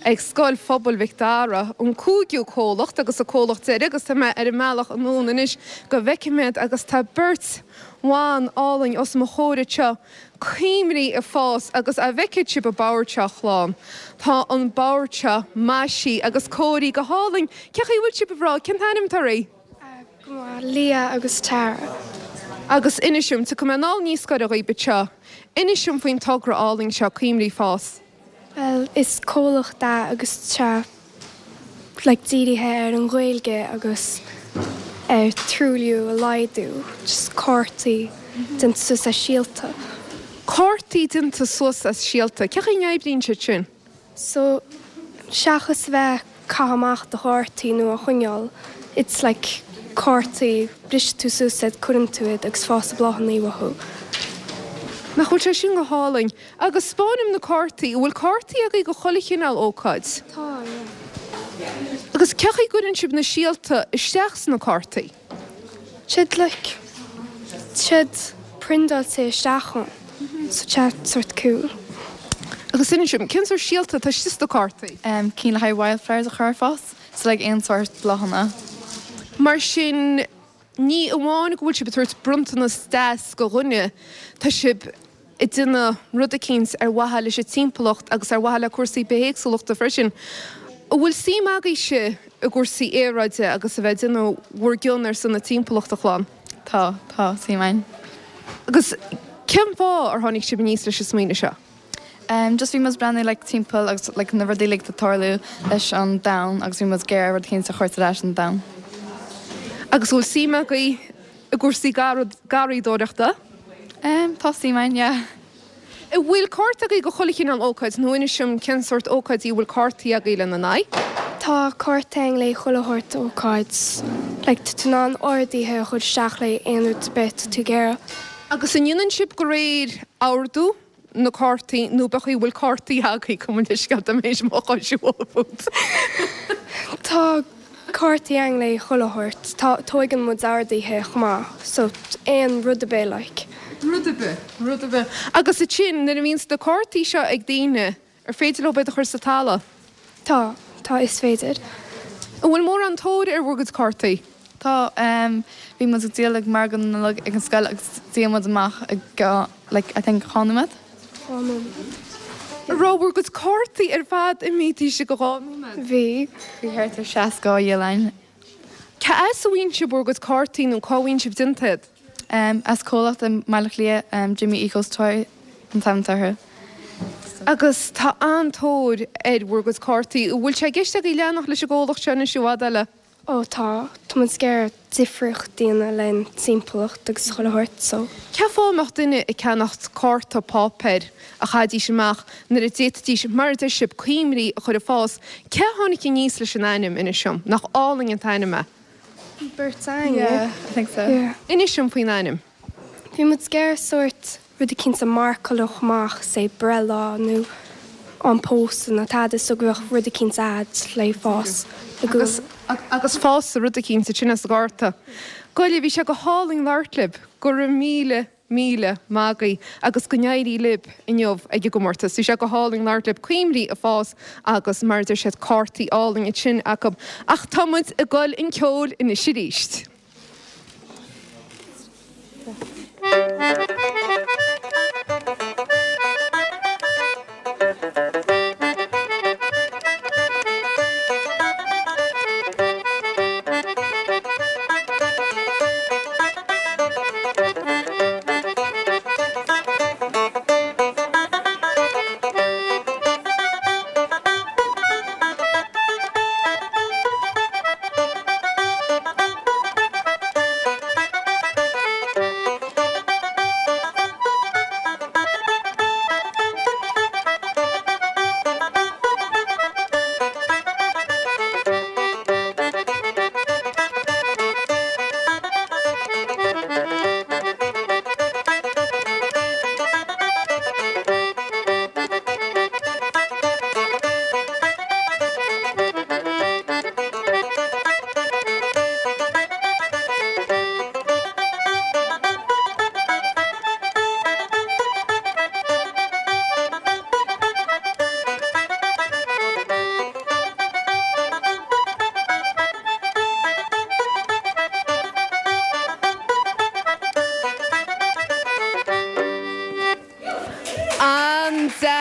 ag Scoil Phobail Mhic Dara, an cúigiú comhlacht agus an comhlacht deiridh agus tá mé ar an mbealach anonn anois go bhfeicfidh mé iad agus tá beirt bhan álainn os mo chomhair anseo, Coimrí ag fás agus a bhfeicfidh sibh an bord seo a chlann. Tá an bord seo maisithe agus cóirithe go hálainn. Cé chaoi a bhfuil sibh a mhná? Cén t-ainm atá oraibh? Go maith, Leah agus Tara. Agus inis dom, tiocfaidh mé anall níos gaire dhaoibh anseo, inis dom faoin togra álainn seo, Coimrí Fás. Bhuel, is comhlacht é agus tá like dírithe ar an Ghaeilge agus ar truailliú a laghdú, just cártaí déanta suas as síolta. Cártaí déanta suas as síolta. Cé chaoi a n-oibríonn siad sin? So, seachas a bheith caitheamh amach do chártaí nó á choinneáil, it's like cártaí, briseann tú suas iad, cuireann tú iad agus fásann bláthanna uathu. Nach bhfuil sé sin go hálainn? Agus 'spáin dom na cártaí, an bhfuil cártaí agaibh do chuile chineál ócáid? Tá, yeah. Agus cé chaoi a gcuireann sibh na síolta isteach sna cártaí? Siad like, siad priondáilte isteach ann, so tá sort cool. Agus inis dom, cén sórt síolta atá istigh sna cártaí? Cinn le haghaidh wildflowers a chur ag fás, so like aon sórt bláthanna. Mar sin, Ní amháin go bhfuil sibh ag tabhairt bronntanas deas go dhuine, tá sibh ag déanamh rud eicínt ar mhaithe leis an timpeallacht agus ar mhaithe le cúrsaí bithéagsúlachta freisin. An bhfuil suim agaibhse i gcúrsaí aeráide agus a bheith ag déanamh bhur gcion ar son na timpeallachta, a chlann? Tá, tá suim againn. Agus cén fáth ar tháinig sibh aníos leis an smaoineamh seo? Em just bhí muid ag breathnú like timpeall agus like na rudaí uilig atá ag tarlú leis an domhan agus bhí muid ag iarraidh rud éicint a chur ar ais an domhan. Agus an bhfuil suim agaibh i gcúrsaí garraíodóireachta? Em tá suim againn, yeah. An bhfuil cárta agaibh go chuile chineál ócáid nó inis dom cén sórt ócáidí a bhfuil cártaí agaibh lena n-aghaidh? Tá cárta againn le chuile shórt ócáid. Like tá tú in ann orduithe a chur isteach le aon rud ar bith atá tú ag iarraidh. Agus an ndéanann sibh de réir ordú? na cártaí nó pé chaoi a bhfuil cártaí agaibh, gabh mo leithscéal tá mé théis mo chois a bhualadh fút. Tá cártaí againn le chuile shórt. Tá, tóigeann muid orduithe chomh maith so aon rud ar bith like. Rud ar bith, rud ar bith. Agus ansin nuair a bhíonns na cártaí seo ag daoine, Ar féidir leo iad a chur sa talamh? Tá, tá, is féidir. An bhfuil mórán tóir ar bhur gcuid cártaí? Tá, bhí muid ag díol ag margadh na Nollag ag an scoil agus dhíol muid amach i like I think 2 nóiméad. 2 nóiméad. An raibh bhur gcuid cártaí ar fad imithe istigh i 2 nóiméad? Bhí. Bhí thart ar 60 á dhíol againn. Cá as a bhfaigheann sibh bhur gcuid cártaí nó cá bhfaigheann sibh déanta iad? As comhlacht i mBaile Átha Cliath, Jimmy Eco Toy an t-ainm atá orthu. Agus tá an-tóir ar bhur gcuid cártaí. An bhfuil sé i gceist agaibh leanacht leis an gcomhlacht seo anois i bhfad eile? Ó tá. Tá muid ag iarraidh difríocht a dhéanamh len timpeallacht agus chuile shórt so. Cén fáth a mbeadh duine ag ceannacht cárta páipéir a chaithfidís amach nuair a d'fhéadfaidís, mar a deir sibh, coimrí a chur ag fás? Cé a tháinig aníos leis an ainm, inis dom? Nach álainn an t-ainm é? Beirt againn, yeah. Yeah, I think so. Yeah. Inis dom faoin ainm. Bhí muid ag iarraidh sórt rud eicínt a mharcálfadh amach, say breithlá nó am pósadh nó tada so go mbeadh rud eicínt a'd le fás i gcónaí. Agus fásfaidh rud eicínt ansin as an gcárta. Goile, bhí sé go hálainn labhairt libh. Go raibh míle, míle maith agaibh agus go n-éirí libh inniu ag an gcomórtas. Bhí sé go hálainn labhairt libh. Coimrí ag fás agus mar a deir siad cártaí álainn ansin acu. Ach tá muid ag dul chun ceoil anois arís.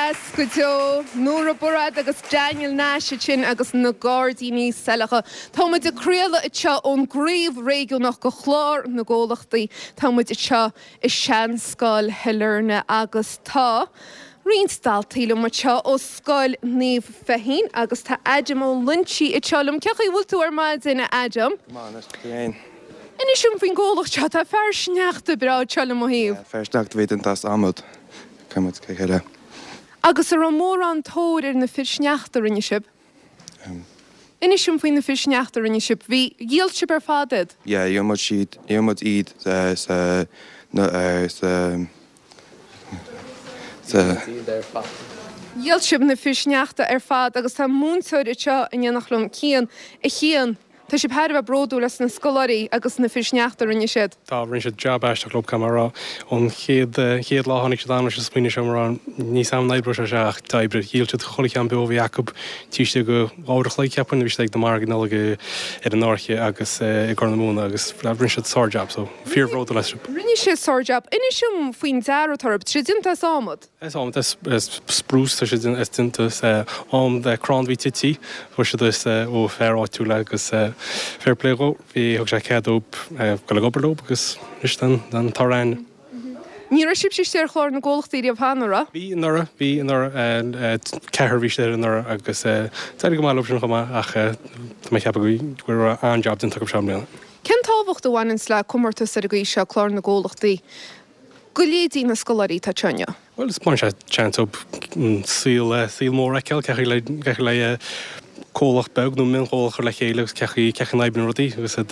Deas go deo. Nóra Murad agus Daniel Nash ansin agus na Gairdíní Saileacha. Tá muid ag craoladh anseo ón gcraobh réigiúnach de Chlár na gComhlachtaí. Tá muid anseo i Seanscoil Shailearna agus tá roinnt daltaí liom anseo ó Scoil Naomh Feichín agus tá Adam Ó Loinsigh anseo liom. Cén chaoi a bhfuil tú ar maidin, a Adam? Go maith, anois, tú fhéin? Inis dom faoin gcomhlacht seo. Tá fear sneachta breá anseo le mo thaobh. Yeah, fear sneachta a bhí déanta as adhmad. Chuir muid le chéile. Agus an raibh mórán tóir ar na fir sneachta a rinne sibh? Inis dom faoi na fir sneachta a rinne sibh. Bhí, dhíol sibh ar fad iad? Yeah, dhíol muid siad, dhíol muid iad sa, sa, sa. Dhíol sibh na fir sneachta ar fad agus tá múinteoir anseo in éineacht liom, Cian. A Chian, Tá sibh thar a bheith bródúil as na scoláirí agus na fir sneachta a rinne siad. Tá, rinne siad jab aisteach leo, caithfidh mé a rá. Ón chéad, chéad lá a tháinig siad ann leis an smaoineamh seo, mé ag rá, níl a fhios agam an oibreoidh sé seo ach d'oibrigh. Dhíol siad chuile cheann beo a bhí acu, taobh istigh de dhá uair a chloig, cheapfainn, bhí siad ag na margaí Nollag ar an Fháirche agus i gCorr na Móna agus rinne siad sár-jab, so fíor-bhródúil astu. Rinne siad sár-jab. Inis dom faoin dearadh atá orthu. Tá siad déanta as adhmad. As adhmad, as spruce, tá siad déanta as adhmad, crann a bhí tite, fuair siad as ó fear áitiúil agus fair play dhó, bhí, thug sé cead dóibh dul ag obair leo agus anois tá an toradh ann. Ní raibh sibhse istigh ar chlár na gcomhlachtaí riamh cheana, an raibh? Bhí anuraidh, bhí anuraidh, ceathrar a bhí istigh air anuraidh agus d'éirigh go maith leo sin chomh maith ach tá mé ag ceapadh go raibh an-jab déanta acu seo i mbliana. Cén tábhacht a bhaineanns le comórtas ar an gcaoi seo, clár na gcomhlachtaí? go leithéidí na scoláirí atá anseo inniu? Bhuel, baineann sé seans dóibh an saol, saol mór a fheiceáil, cén chaoi le, cén chaoi le comhlacht beag nó mionchomhlacht a chur le chéile agus cén chaoi, cén chaoi a n-oibríonn rudaí agus iad,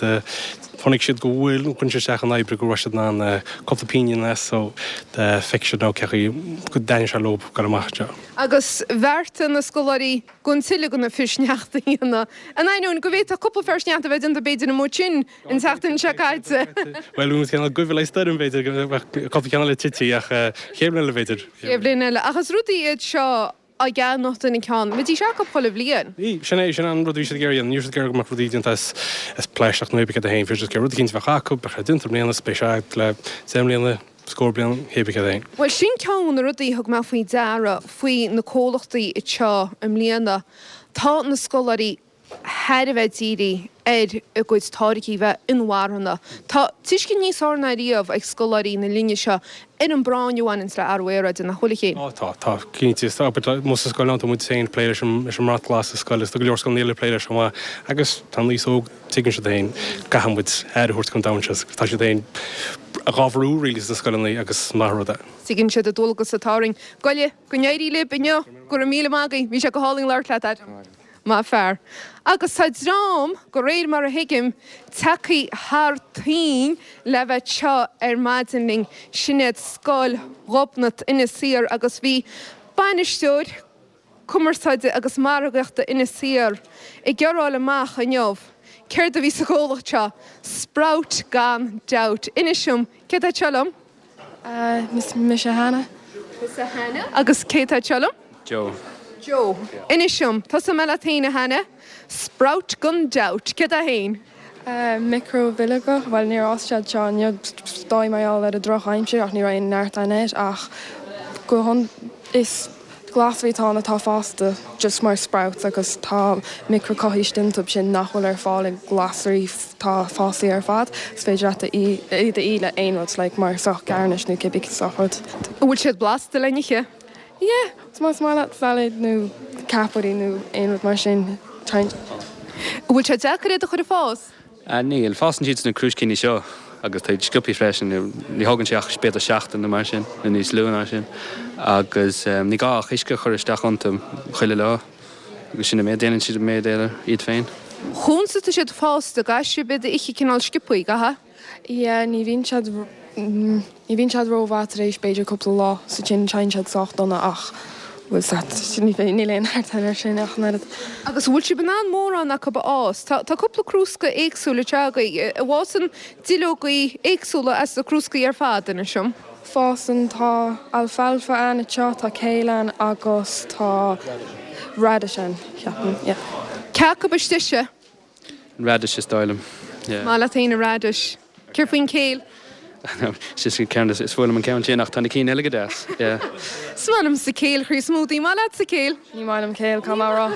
chonaic siad go bhfuil, chuir siad isteach an obair go raibh siad in ann cúpla pingin as so feicfidh siad now cén chaoi go dtaitníonn sé leo dul amach anseo. Agus bheartaigh na scoláirí gan tuilleadh de na fir sneachta a dhéanamh, in ainneoin go bhféadfadh cúpla fear sneachta a bheith déanta b'fhéidir amuigh ansin An tseachtain seo caite. Bhuel, bhí muid cineál goimh le stoirm, b'fhéidir, go mbeadh cúpla ceann eile tite, ach chéad bhliain eile, b'fhéidir. Chéad bhliain eile. Ach is rudaí iad seo á gceannach duine ceann. Bheidís acu chuile bhliain. Bhí, sin é, sin an rud a bhí siad ag iarraidh a dhéanamh. Ní raibh siad ag iarraidh go mbeadh rudaí déanta as, as plaisteach nó pé céard é féin. Bhí siad ag iarraidh rud eicínt a bheadh acu, beadh sé déanta i mbliana, is beidh sé agat le deich mbliana, scór bliain, pé céard é féin. Bhuel, sin ceann de na rudaí a thug mé faoi deara faoi na comhlachtaí anseo i mbliana. Tá na scoláirí thar a bheith dírithe ar a gcuid táirgí bheith inmharthana. Tá tuiscint níos fearr ná riamh ag scoláirí na linne seo ar an bpráinn a bhaineanns le athrú aeráide, nach bhfuil, a Chéin? Á, tá, tá, cinnte. Is amuigh sa scoil tá muid féin ag plé leis an leis an mbrat glas sa scoil agus tá go leor scoileanna eile ag plé leis chomh maith. Agus tá an aos óg, tuigeann siad féin, caithfidh muid aire a thabhairt don domhan seo. Tá siad féin dhá bhrú really sna scoileanna agus is maith an rud é. Tuigeann siad an dualgas atá orainn. Goile, go n-éirí libh inniu. Go raibh míle maith agaibh. Bhí sé go hálainn labhairt leat, Adam. Maith fear. Agus tá dream, de réir mar a thuigim, tagtha thar toinn le bheith anseo ar maidin linn. Sin iad Scoil Ghobnait Inis Oírr agus bhí bainisteoir cumarsáide agus margaíochta Inis Oírr ag iarraidh a fháil amach inniu céard a bhí sa gcomhlacht seo. Sprout gan dabht. Inis dom, cé atá anseo liom? Mise Hannah. Tusa Hannah. Agus cé atá anseo liom? Joe. Joe. Inis dom, tosóidh mé leat féin a Hannah. Sprout gan dabht. Céard é féin? Micribhileoga, bhuel níor fhás siad seo inniu, is dóigh mar gheall ar an drochaimsir ach ní raibh aon neart ann air ach go is Glasraí atá ann atá fásta just mar sprouts agus tá micreachothaí istigh iontu sin nach bhfuil ar fáil i nglasraí atá fásaí ar fad. Is féidir leat iad a ithe le aon rud like mar sórt garnish nó cibé sórt rud. An bhfuil siad blasta le n-ithe? Yeah, más maith leat salad nó ceapairí nó aon rud mar sin, try. An bhfuil sé deacair iad a chur ag fás? Níl. Fásann siad sna crúiscíní seo agus tá siad sciobthaí freisin. Ní thógann sé ach b'fhéidir seachtain nó mar sin, nó níos lú ná sin. Agus ní gá ach uisce a chur isteach iontu chuile lá agus sin an méid. Déanann siad an méid eile iad féin. Conas atá siad fásta, caithfidh sibh iad a ithe cineál sciobthaí, caithfidh? Yeah, ní bhíonn siad, ní bhíonn siad rómhaith tar éis b'fhéidir cúpla lá so sin téann siad sách dona ach bhfuil 's a't, níl aon neart air sin ach an oiread. Agus an bhfuil sibh in ann mórán acu a fhás? Tá, tá cúpla crúsca éagsúil anseo agaibh. An bhfásann duilleogaí éagsúla as na crúscaí ar fad, inis dom? Fásann, tá alfalfa ann anseo, tá kale ann agus tá radish ann, ceapaim, yeah. Cé acu is deise? An radish is dóigh liom. Yeah. Maith leat féin an radish. Céard faoin kale? Sin ceann is fuath liom an ceann sin ach tá na cinn eile go deas, yeah. Is maith liomsa céil chroí smoothie, maith leatsa céil? Ní maith liom céil, caithfidh mé a rá.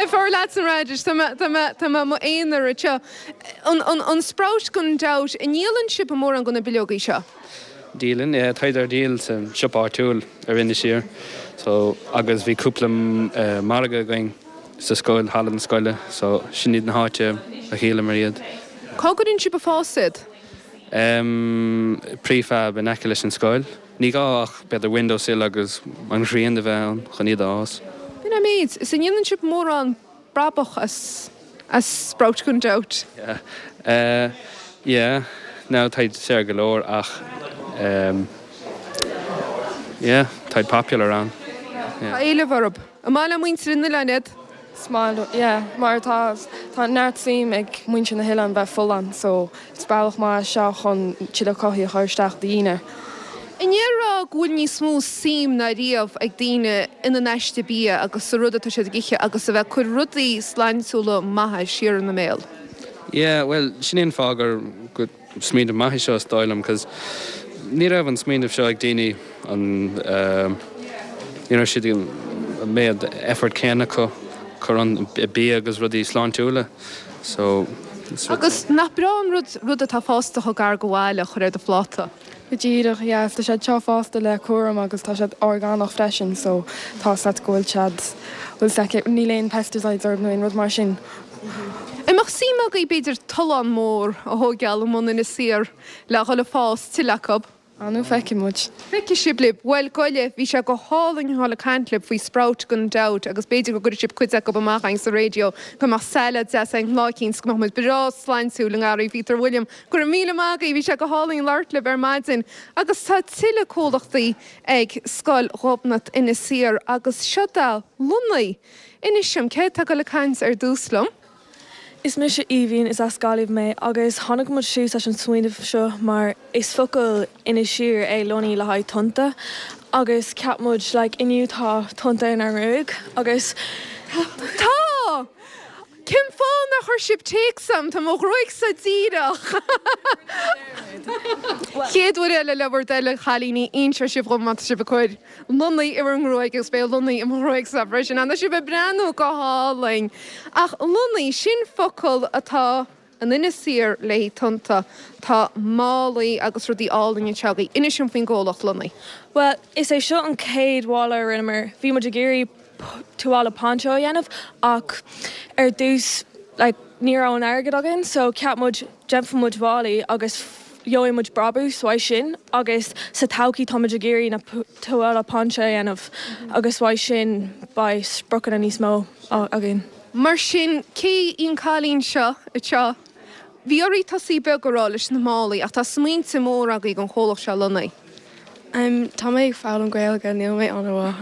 An fearr leatsa an radish, tá mé, tá mé, tá mé i m'aonar anseo. An, an, an sprout gan dabht, an ndíolann sibh mórán de na bileogaí seo? Díolann, yeah, táid ar díol sa siopa áitiúil ar Inis Oírr so agus bhí cúpla margadh againn sa scoil, halla na scoile so sin iad na háite a dhíolamar iad. Cá gcuireann sibh ag fás iad? Em, prefab in aice leis an scoil. Ní gá ach b'fhéidir windowsill agus an ghrian a bheith ann chun iad a fhás. B'in an méid. Is an ndéanann sibh mórán brabach as, as sprout gan dabht? Yeah. Eh, yeah. Now táid saor go leor ach em, yeah, táid popular ann. Yeah. Tá éileamh orthu. An maith le muintir an oileáin iad? Is maith leo, yeah, mar tá tá neart suim ag muintir na hoileáin bheith folláin so is bealach maith é seo chun tuilleadh cothaithe a chur isteach do dhaoine. An ndéarfá go bhfuil níos mó suim ná riamh ag daoine ina n-aiste bia agus sa rud atá siad ag ithe agus a bheith ag cur rudaí sláintiúla maithe siar ina mbéal? Yeah, bhuel, sin é an fáth gur go Smaoineamh maith é seo is dóigh liom cos ní raibh an smaoineamh seo ag daoine an ní raibh siad an méad effort céanna acu cur an bia agus rudaí sláintiúla so Agus nach breá an rud rud atá fásta chomh gar do bhaile a chur ar do phláta? Go díreach, yeah, tá siad seo fásta le cúram agus tá siad orgánach freisin so tá 's agat go bhfuil siad, bhfuil 's agat, níl aon pesticides orthu nó aon rud mar sin. An mbeadh suim agaibh b'fhéidir tollán mór a thóigeáil i mbun Inis Oírr le dhul ag fás tuilleadh acu? Ah nó feicfidh muid. Feicfidh sibh libh. Bhuel, gabh i leith, bhí sé go hálainn a dhul ag caint libh faoi Sprout gan dabht agus b'fhéidir go gcuirfidh sibh cuid acu amach againn sa raidió go mbeadh salad deas againn lá eicínt go mbeadh muid breá sláintiúil i ngarraí Peter William. Go raibh míle maith agaibh, bhí sé go hálainn labhairt libh ar maidin agus tá tuilleadh comhlachtaí ag Scoil Ghobnait Inis Oírr agus seo da Lunny. Inis dom, cé atá ag dul ag caint ar dtús liom? Is mise Aoibhinn, is as Gaillimh mé agus tháinig muid suas leis an smaoineamh seo mar is focal Inis Oírr é lunny le haghaidh tonnta agus cheap muid like inniu tá tonnta inár ngruaig agus Tá! Cén fáth nár chuir sibh téacs a'm? Tá mo ghruaigsa díreach. Chéad uair eile le bhur dtoil a chailíní, inseoidh sibh dhom má tá sibh ag cur. Lunny i bhur ngruaig agus beidh lunny i mo ghruaigsa freisin. Tá sibh ag breathnú go hálainn. Ach lunny, sin focal atá in Inis Oírr le haghaidh tonnta. Tá málaí agus rudaí álainn anseo agaibh. Inis dom faoin gcomhlacht Lunny. Bhuel, is é seo an chéad mhála a rinneamar. Bhí muid ag iarraidh tuáille poncho a dhéanamh ach ar dtús like ní raibh an airgead againn so cheap muid déanfaidh muid málaí agus gheobhaidh muid brabús uaidh sin agus sa todhchaí tá muid ag iarraidh na tuáille poncho a dhéanamh agus uaidh sin beidh spriocanna níos mó againn. Mar sin, cé í an cailín seo anseo? Bhí oraibh tosaí beag a rá leis na málaí ach tá smaointe móra agaibh don chomhlacht seo Lunny. Tá mé ag foghlaim Gaeilge, níl mé an-mhaith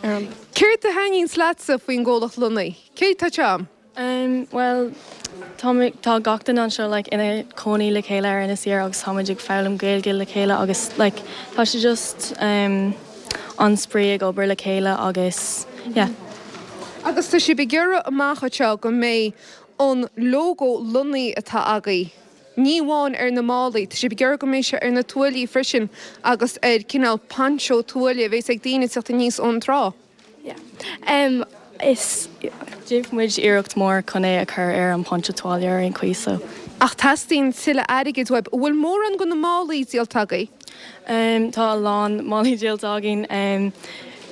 ar an. Céard a thaitníonns leatsa faoin gcomhlacht Lunny? Cé atá anseo? Bhuel, tá mé, tá gach duine anseo like ina cónaí le chéile ar Inis Oírr agus táimid ag foghlaim Gaeilge le chéile agus like tá sé just an-spraoi ag obair le chéile agus yeah. Agus tá sibh ag iarraidh amach anseo go mbeidh an lógó Lunny atá agaibh, ní amháin ar na málaí, tá sibh ag iarraidh go mbeidh sé ar na tuáillí freisin agus ar cineál poncho tuáille a bheas ag daoine ag teacht aníos ón trá. Yeah. Em, is, déanfaidh muid iarracht mór chun é a chur ar an poncho tuáille ar aon chaoi so. Ach teastaíonn tuilleadh airgid uaibh. An bhfuil mórán de na málaí díolta agaibh? Em, tá a lán málaí díolta againn. Em,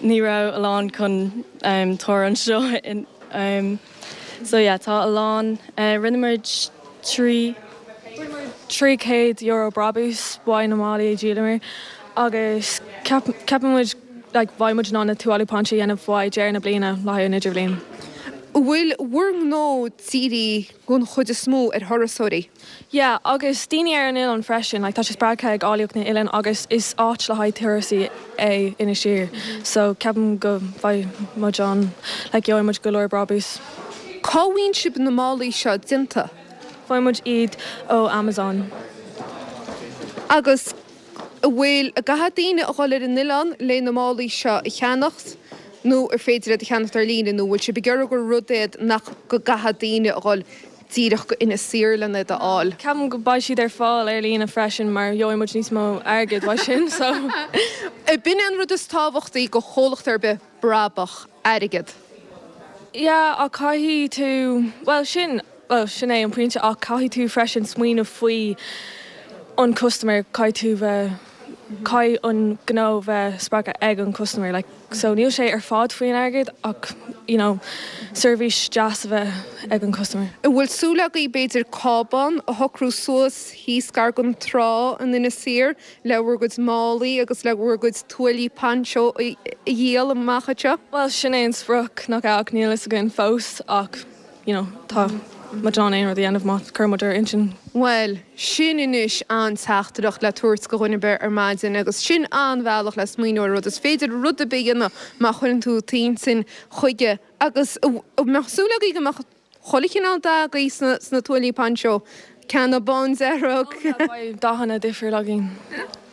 ní raibh a lán chun, em, tabhair anseo in, em, so yeah, tá a lán, eh, rinne muid 3. Rinne muid €300 brabús uaidh na málaí a dhíolamar agus ceap, ceapann muid, like beidh muid in ann na tuáillí poncho a dhéanamh uaidh deireadh na bliana le haghaidh an idirbhliain. An bhfuil bhur ngnó dírithe den chuid is mó ar thurasóirí? Yeah, agus daoine ar an oileán freisin, like tá sé spreagtha ag áilleacht na n-oileán agus is áit le haghaidh turasaí é Inis Oírr so ceapaim go bhfaighidh muid an, like gheobhaidh muid go leor brabús. Cá bhfaigheann sibh na málaí seo déanta? Faigheann muid iad ó Amazon. Agus An bhfuil, an gcaithfidh daoine a dhul ar an oileán le na málaí seo a cheannacht nó ar féidir iad a cheannacht ar líne nó an bhfuil sibh ag iarraidh gur rud é nach go gcaithfidh daoine a dhul. díreach go Inis Oírr len iad a fháil. Ceapaim go beidh siad ar fáil ar líne freisin mar gheobhaidh muid níos mó airgid uaidh sin so. B'in é an rud is tábhachtaí go chomhlacht ar bith, brabach, airgead. Yeah ach caithfidh tú, bhuel sin, bhuel sin é an pointe ach caithfidh tú freisin smaoineamh faoi an customer, caithfidh tú bheith, caithfidh an gnó bheith spreagtha ag an customer like. So níl sé ar fad faoin airgead ach you know seirbhís deas a bheith ag an customer. An bhfuil súil agaibh b'fhéidir cábán a shocrú suas thíos gar don trá in Inis Oírr le bhur gcuid málaí agus le bhur gcuid tuáillí poncho a dhíol amach anseo? Bhuel sin é an sprioc nach ea ach níl fhios againn fós ach you know tá muid in ann aon rud a dhéanamh má chuireann muid ár intinn. Bhuel, sin anois an-teachtaireacht le tabhairt go dhuine ar bith ar maidin agus sin an-bhealach le smaoineamh ar rud. Is féidir rud ar bith a dhéanamh má chuireann tú t'intinn chuige agus an mbeadh súil agaibh go mbeadh chuile chineál dath agaibh sna tuáillí poncho, ceanna bándearg. Beidh dathanna difriúil againn.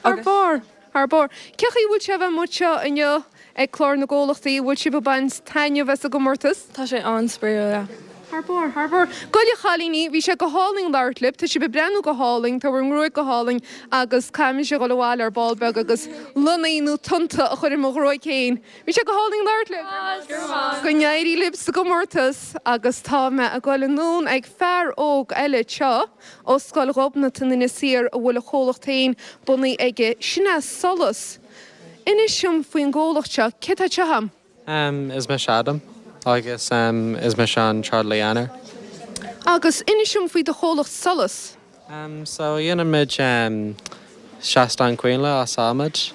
Thar barr! Thar barr. Cén chaoi a bhfuil sé a bheith amuigh anseo inniu ag Clár na gComhlachtaí? An bhfuil sibh ag baint taitneamh as an gcomórtas? Tá sé an-spraíúil, yeah. Thar barr, thar barr. Gabh i leith a chailíní, bhí sé go hálainn labhairt libh. Tá sibh ag breathnú go hálainn, tá bhur ngruaig go hálainn agus caithfidh mise a dhul abhaile ar ball beag agus lonnaí nó tonnta a chur ar mo ghruaig féin. Bhí sé go hálainn labhairt libh. Go n-éirí libh sa gcomórtas agus tá mé ag dul anonn ag fear óg eile anseo. Ó Scoil Ghobnait in Inis Oírr a bhfuil a chomhlacht féin bunaithe aige, sin é Solas. Inis dom faoin gcomhlacht seo, cé atá anseo a'm? Is mise Adam agus is mise an trádálaí aonair. Agus inis dom faoi do chomhlacht Solas. So dhéanann muid seastán coinnle as adhmad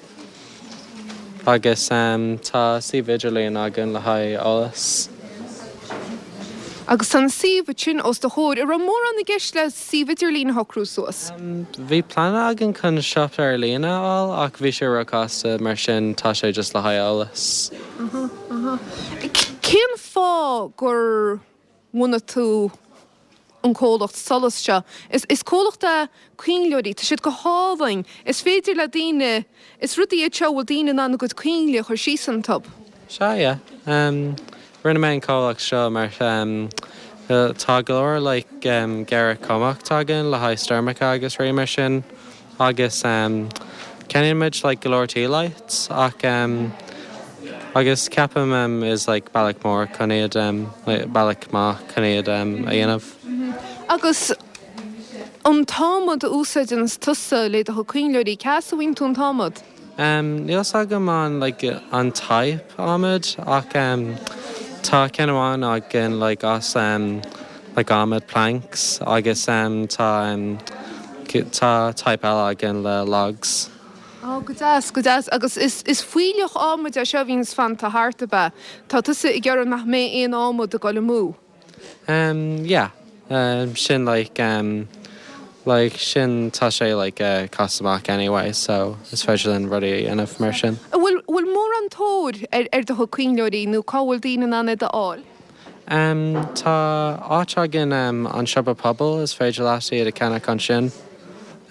agus tá suíomh idirlíon againn le haghaidh eolas. Agus tá an suíomh sin os do chomhair. An raibh mórán i gceist le suíomh idirlín a shocrú suas? Bhí plean againn chun siopa ar líne a fháil ach bhí sé róchasta mar sin tá sé just le haghaidh eolas. Cén fáth gur bhunaigh tú an comhlacht Solas seo. Is comhlacht é coinnleoirí, tá siad go hálainn. Is féidir le daoine, is rudaí iad seo a bhfuil daoine in ann a gcuid coinnle a chur síos iontu. Sea, yeah. Rinne mé an comhlacht seo mar tá go leor like géarchumhacht againn le haghaidh stoirmeacha agus rudaí mar sin. Agus ceannaíonn muid like go leor tea lights ach agus ceapaim is like bealach mór chun iad like bealach maith chun iad a dhéanamh. Agus an t-adhmad a úsáideann tusa le do chuid coinnleoirí, cá as a bhfaigheann tú an t-adhmad? Níl fhios agam an like an type adhmad ach tá ceann amháin againn like as like adhmad planks agus tá tá type eile againn le logs. Ó, go deas, go deas. Agus is is fuílleach adhmaid é seo a bhíonns fanta thart, ab ea? Tá tusa ag iarraidh nach mbeidh aon adhmad ag dul amú? Um yeah um sin like um like sin tá sé like eh cost amach anyway so is féidir linn rudaí a dhéanamh mar sin. An bhfuil bhfuil mórán tóir ar ar do chuid coinnleoirí nó cá bhfuil daoine in ann iad a fháil? Um tá áit againn um an siopa pobail is féidir leat iad a cheannach ansin.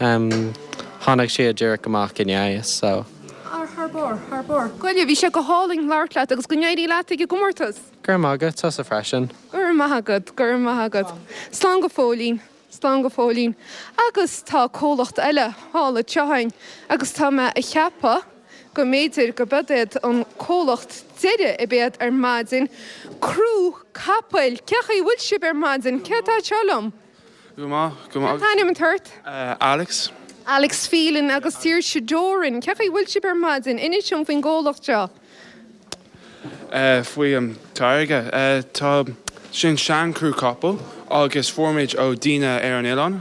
Um tháinig siad díreach amach inné so. Ar thar barr, thar barr. Gabh i leith, bhí sé go hálainn labhairt leat agus go n-éirí leat ag an gcomórtas! Go raibh maith agat, tusa freisin. Go raibh maith agat, go raibh maith agat. Slán go fóillín, slán go fóillín. Agus tá comhlacht eile thall anseo againn agus tá mé a cheapadh go mb'fhéidir go b'iad iad an comhlacht deiridh a bheidh ar maidin. Crú Capaill! Cén chaoi a bhfuil sibh ar maidin? Cé atá anseo liom? Go maith, go maith. Cén t-ainm atá ort? Alex. Alex Phelan agus Saoirse Doran. Cén chaoi a bhfuil sibh ar maidin? Inis dom faoin gcomhlacht seo. Faoi an táirge. Tá sin seanchrú capall agus fuair muid ó daoine ar an oileán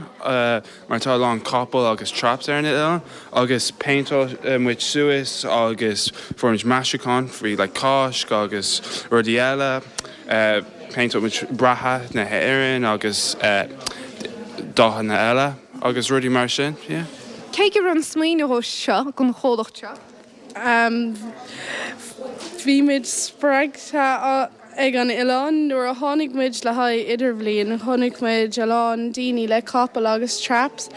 mar tá a lán capall agus traps ar an oileán agus péinteáil muid suas agus fuair muid maisiúcháin faoi like Cáisc agus rudaí eile. Péinteáil muid bratach na hÉireann agus dathanna eile agus rudaí mar sin, yeah. Cé go raibh an smaoineamh seo don chomhlacht seo? Bhí muid spreagtha ag an oileán. Nuair a tháinig muid le haghaidh idirbhliain, chonaic muid a lán daoine le capaill agus traps.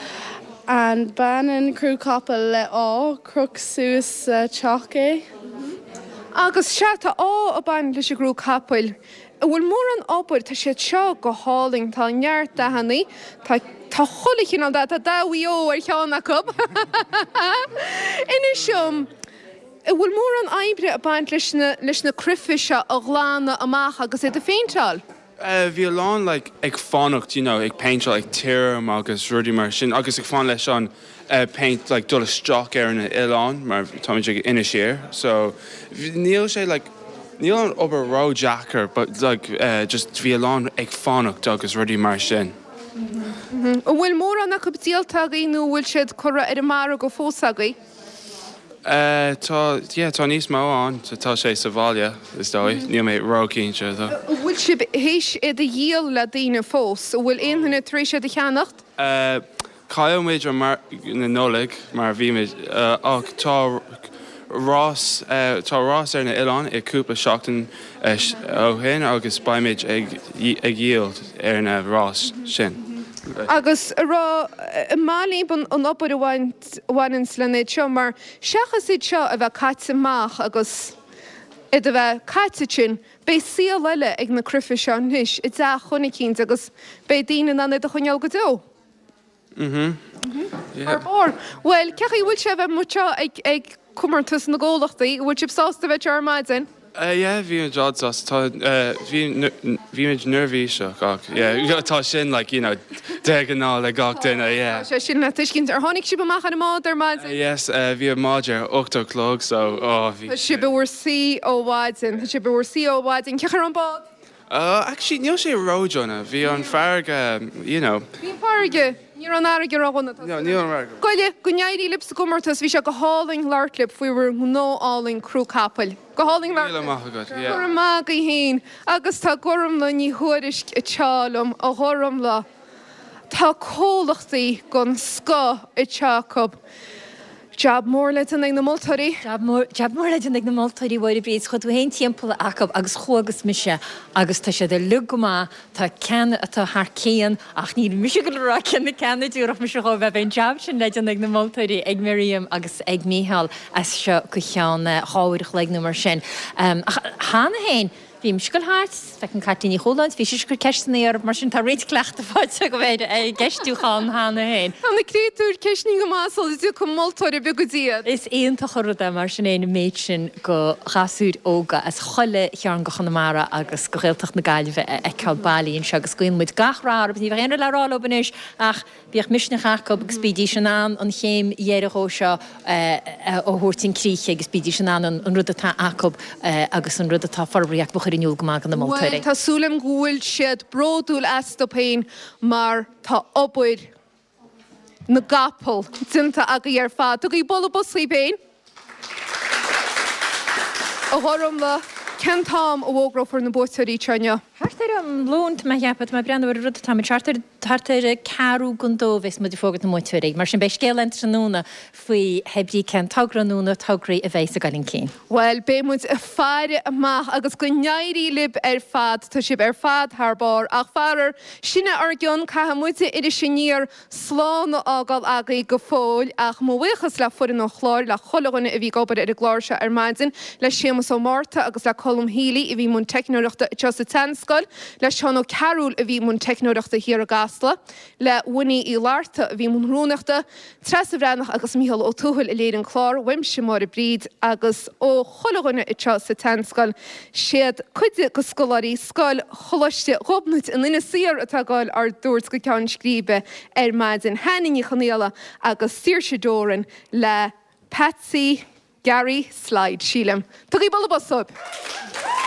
And baineann crú capaill le ádh, croch suas sa teach é. Agus sea, tá ádh ag baint leis an gcrú capaill. An bhfuil mórán obair, tá siad seo go hálainn, tá neart dathannaí, tá tá chuile chineál dath, tá dath Mhaigh Eo ar cheann acu. Inis dom, an bhfuil mórán oibre ag baint leis na leis na cruife seo a ghlanadh amach agus iad a phéinteáil? Bhí a lán like ag fanacht you know ag péinteáil ag tirim agus rudaí mar sin agus ag fan leis an péint like dul isteach ar an oileán mar táimid ag Inis Oírr so níl sé like níl an obair ró-deacair but like just bhí a lán ag fanacht agus rudaí mar sin. An bhfuil mórán acu díolta agaibh nó an bhfuil siad curtha ar an margadh fós agaibh? Tá, yeah, tá níos mó ann, tá sé sa bhaile, is dóigh, níl mé ró-chinnte though. An bhfuil sibh théis iad a dhíol le daoine fós? An bhfuil aon duine tar éis iad a cheannacht? Chaill muid an margadh na Nollag mar bhí muid, ach tá rás, tá rás ar na oileáin i cúpla seachtain ó shin agus beimid ag ag dhíol ar na rás sin. Agus a rá, an maith libh an obair a bhain a bhaineanns lena iad seo, mar seachas iad seo a bheith caite amach agus iad a bheith caite ansin, beidh saol eile ag na cruife seo anois i dteach dhuine eicínt agus beidh daoine in ann iad a choinneáil go deo. Mhm. Yeah. Thar barr. Bhuel, cén chaoi a bhfuil sé a bheith amuigh anseo ag, ag comórtas na gcomhlachtaí? An bhfuil sibh sásta a bheith anseo ar maidin? Yeah, bhí muid an-sásta. Tá, bhí, bhí muid neirbhíseach ach yeah, tá sin like, you know, de ghnáth le gach duine, yeah. Tá sé sin le tuiscint. Ar tháinig sibh amach ar an mbád ar maidin? Yes, bhí an bád ar 8 a chlog so, oh, bhí. Tá sibh i bhur suí ó mhaidin. Tá sibh i bhur suí ó mhaidin. Cén chaoi a raibh an bád? Actually, níl sé ró-dhona. Bhí an farraige, you know. Bhí an farraige, ní raibh an fharraige ró-dhona. No, ní raibh an fharraige. Goile, go n-éirí libh sa gcomórtas, bhí sé go hálainn labhairt libh faoi bhur ngnó álainn crú capaill. Go hálainn labhairt libh. Míle maith agat, yeah. Go raibh maith agaibh féin. Agus tá Gormlaith Ní Thuairisg anseo liom, a Ghormlaith. Tá comhlachtaí den scoth anseo acu. Jab mór le déanamh ag na moltóirí. Jab mór, jab mór le déanamh ag na moltóirí, a Mháire Bríd. Chuaigh tú féin timpeall acu agus chuagas mise agus tá siad uilig go maith. Tá ceann atá thar cionn ach níl mise ag dul a rá cé na ceanna a dtabharfadh mise dhóibh. Beidh an jab sin le déanamh ag na moltóirí, ag Miriam agus ag Mícheál as seo go ceann dhá uair a chloig nó mar sin. Ach cheana féin, Bhí mise ag dul thart, feicim Caitlín Ní Chualáin, bhí sise ag cur ceisteanna orm, mar sin tá roinnt cleachtaidh faighte agam ar an gceistiúchán cheana féin. Tá na créatúir ceistnithe go maith sula dtiocfaidh moltóir ar bith go dtí iad. Is iontach an rud é mar sin fhéin an méid sin go ghasúir óga as chuile chearn go Chonamara agus go Ghaeltacht na Gaillimhe a fheiceáil bailithe anseo agus guíonn muid gach rath orthu. Ní bheadh aon rud le rá leo anois ach Bíodh misneach acu agus bídís in ann an chéim dheiridh dhó seo a thabhairt chun críche agus bídís in ann an rud atá acu agus an rud atá forbartha acu a chur in iúl go maith do na moltóirí. Bhuel, tá súil agam go bhfuil siad bródúil astu féin mar tá obair na gcapall déanta agaibh ar fad. Tugaigí bualadh bos dhaoibh féin. A Ghormlaith, cén t-am a bhfógrófar na buaiteoirí anseo inniu? Thart ar am lóin, tá mé a cheapadh, tá mé ag breathnú ar an rud atá muid, thart ar, thart ar ceathrú don dó a bheas muid ag fógairt na mbuaiteoirí. Mar sin beidh scéal ann tráthnóna faoi hé brí cén togra nó na tograí a bheas ag dul chun cinn. Bhuel, beidh muid ag faire amach agus go n-éirí libh ar fad, tá sibh ar fad thar barr. Ach faraor, sin é ár gcion, caithfidh muide Iris Aniar slán a fhágáil agaibh go fóill ach mo bhuíochas le foireann an chláir, le chuile dhuine a bhí ag obair ar an gclár seo ar maidin, le Séamus Ó Márta agus le Colm Healy a bhí i mbun teicneoireachta anseo sa tSeanscoil, le Seán Ó Cearúil a bhí i mbun teicneoireachta thiar i gCasla, le Winnie Uí Fhlatharta a bhí i mbun rúnaíochta, Treasa Bhreathnach agus Mícheál Ó Tuathail a léirigh an clár, uaimse Máire Bríd agus ó chuile dhuine anseo sa tSeanscoil. Siad cuid de scoláirí Scoil Choláiste Ghobnait in Inis Oírr atá ag goil ár dtabhairt go ceann scríbe ar maidin, Hannah Ní Chonaola agus Saoirse Doran le Patsy Gary Slide, sílim. Tugaigí bualadh bos dóibh!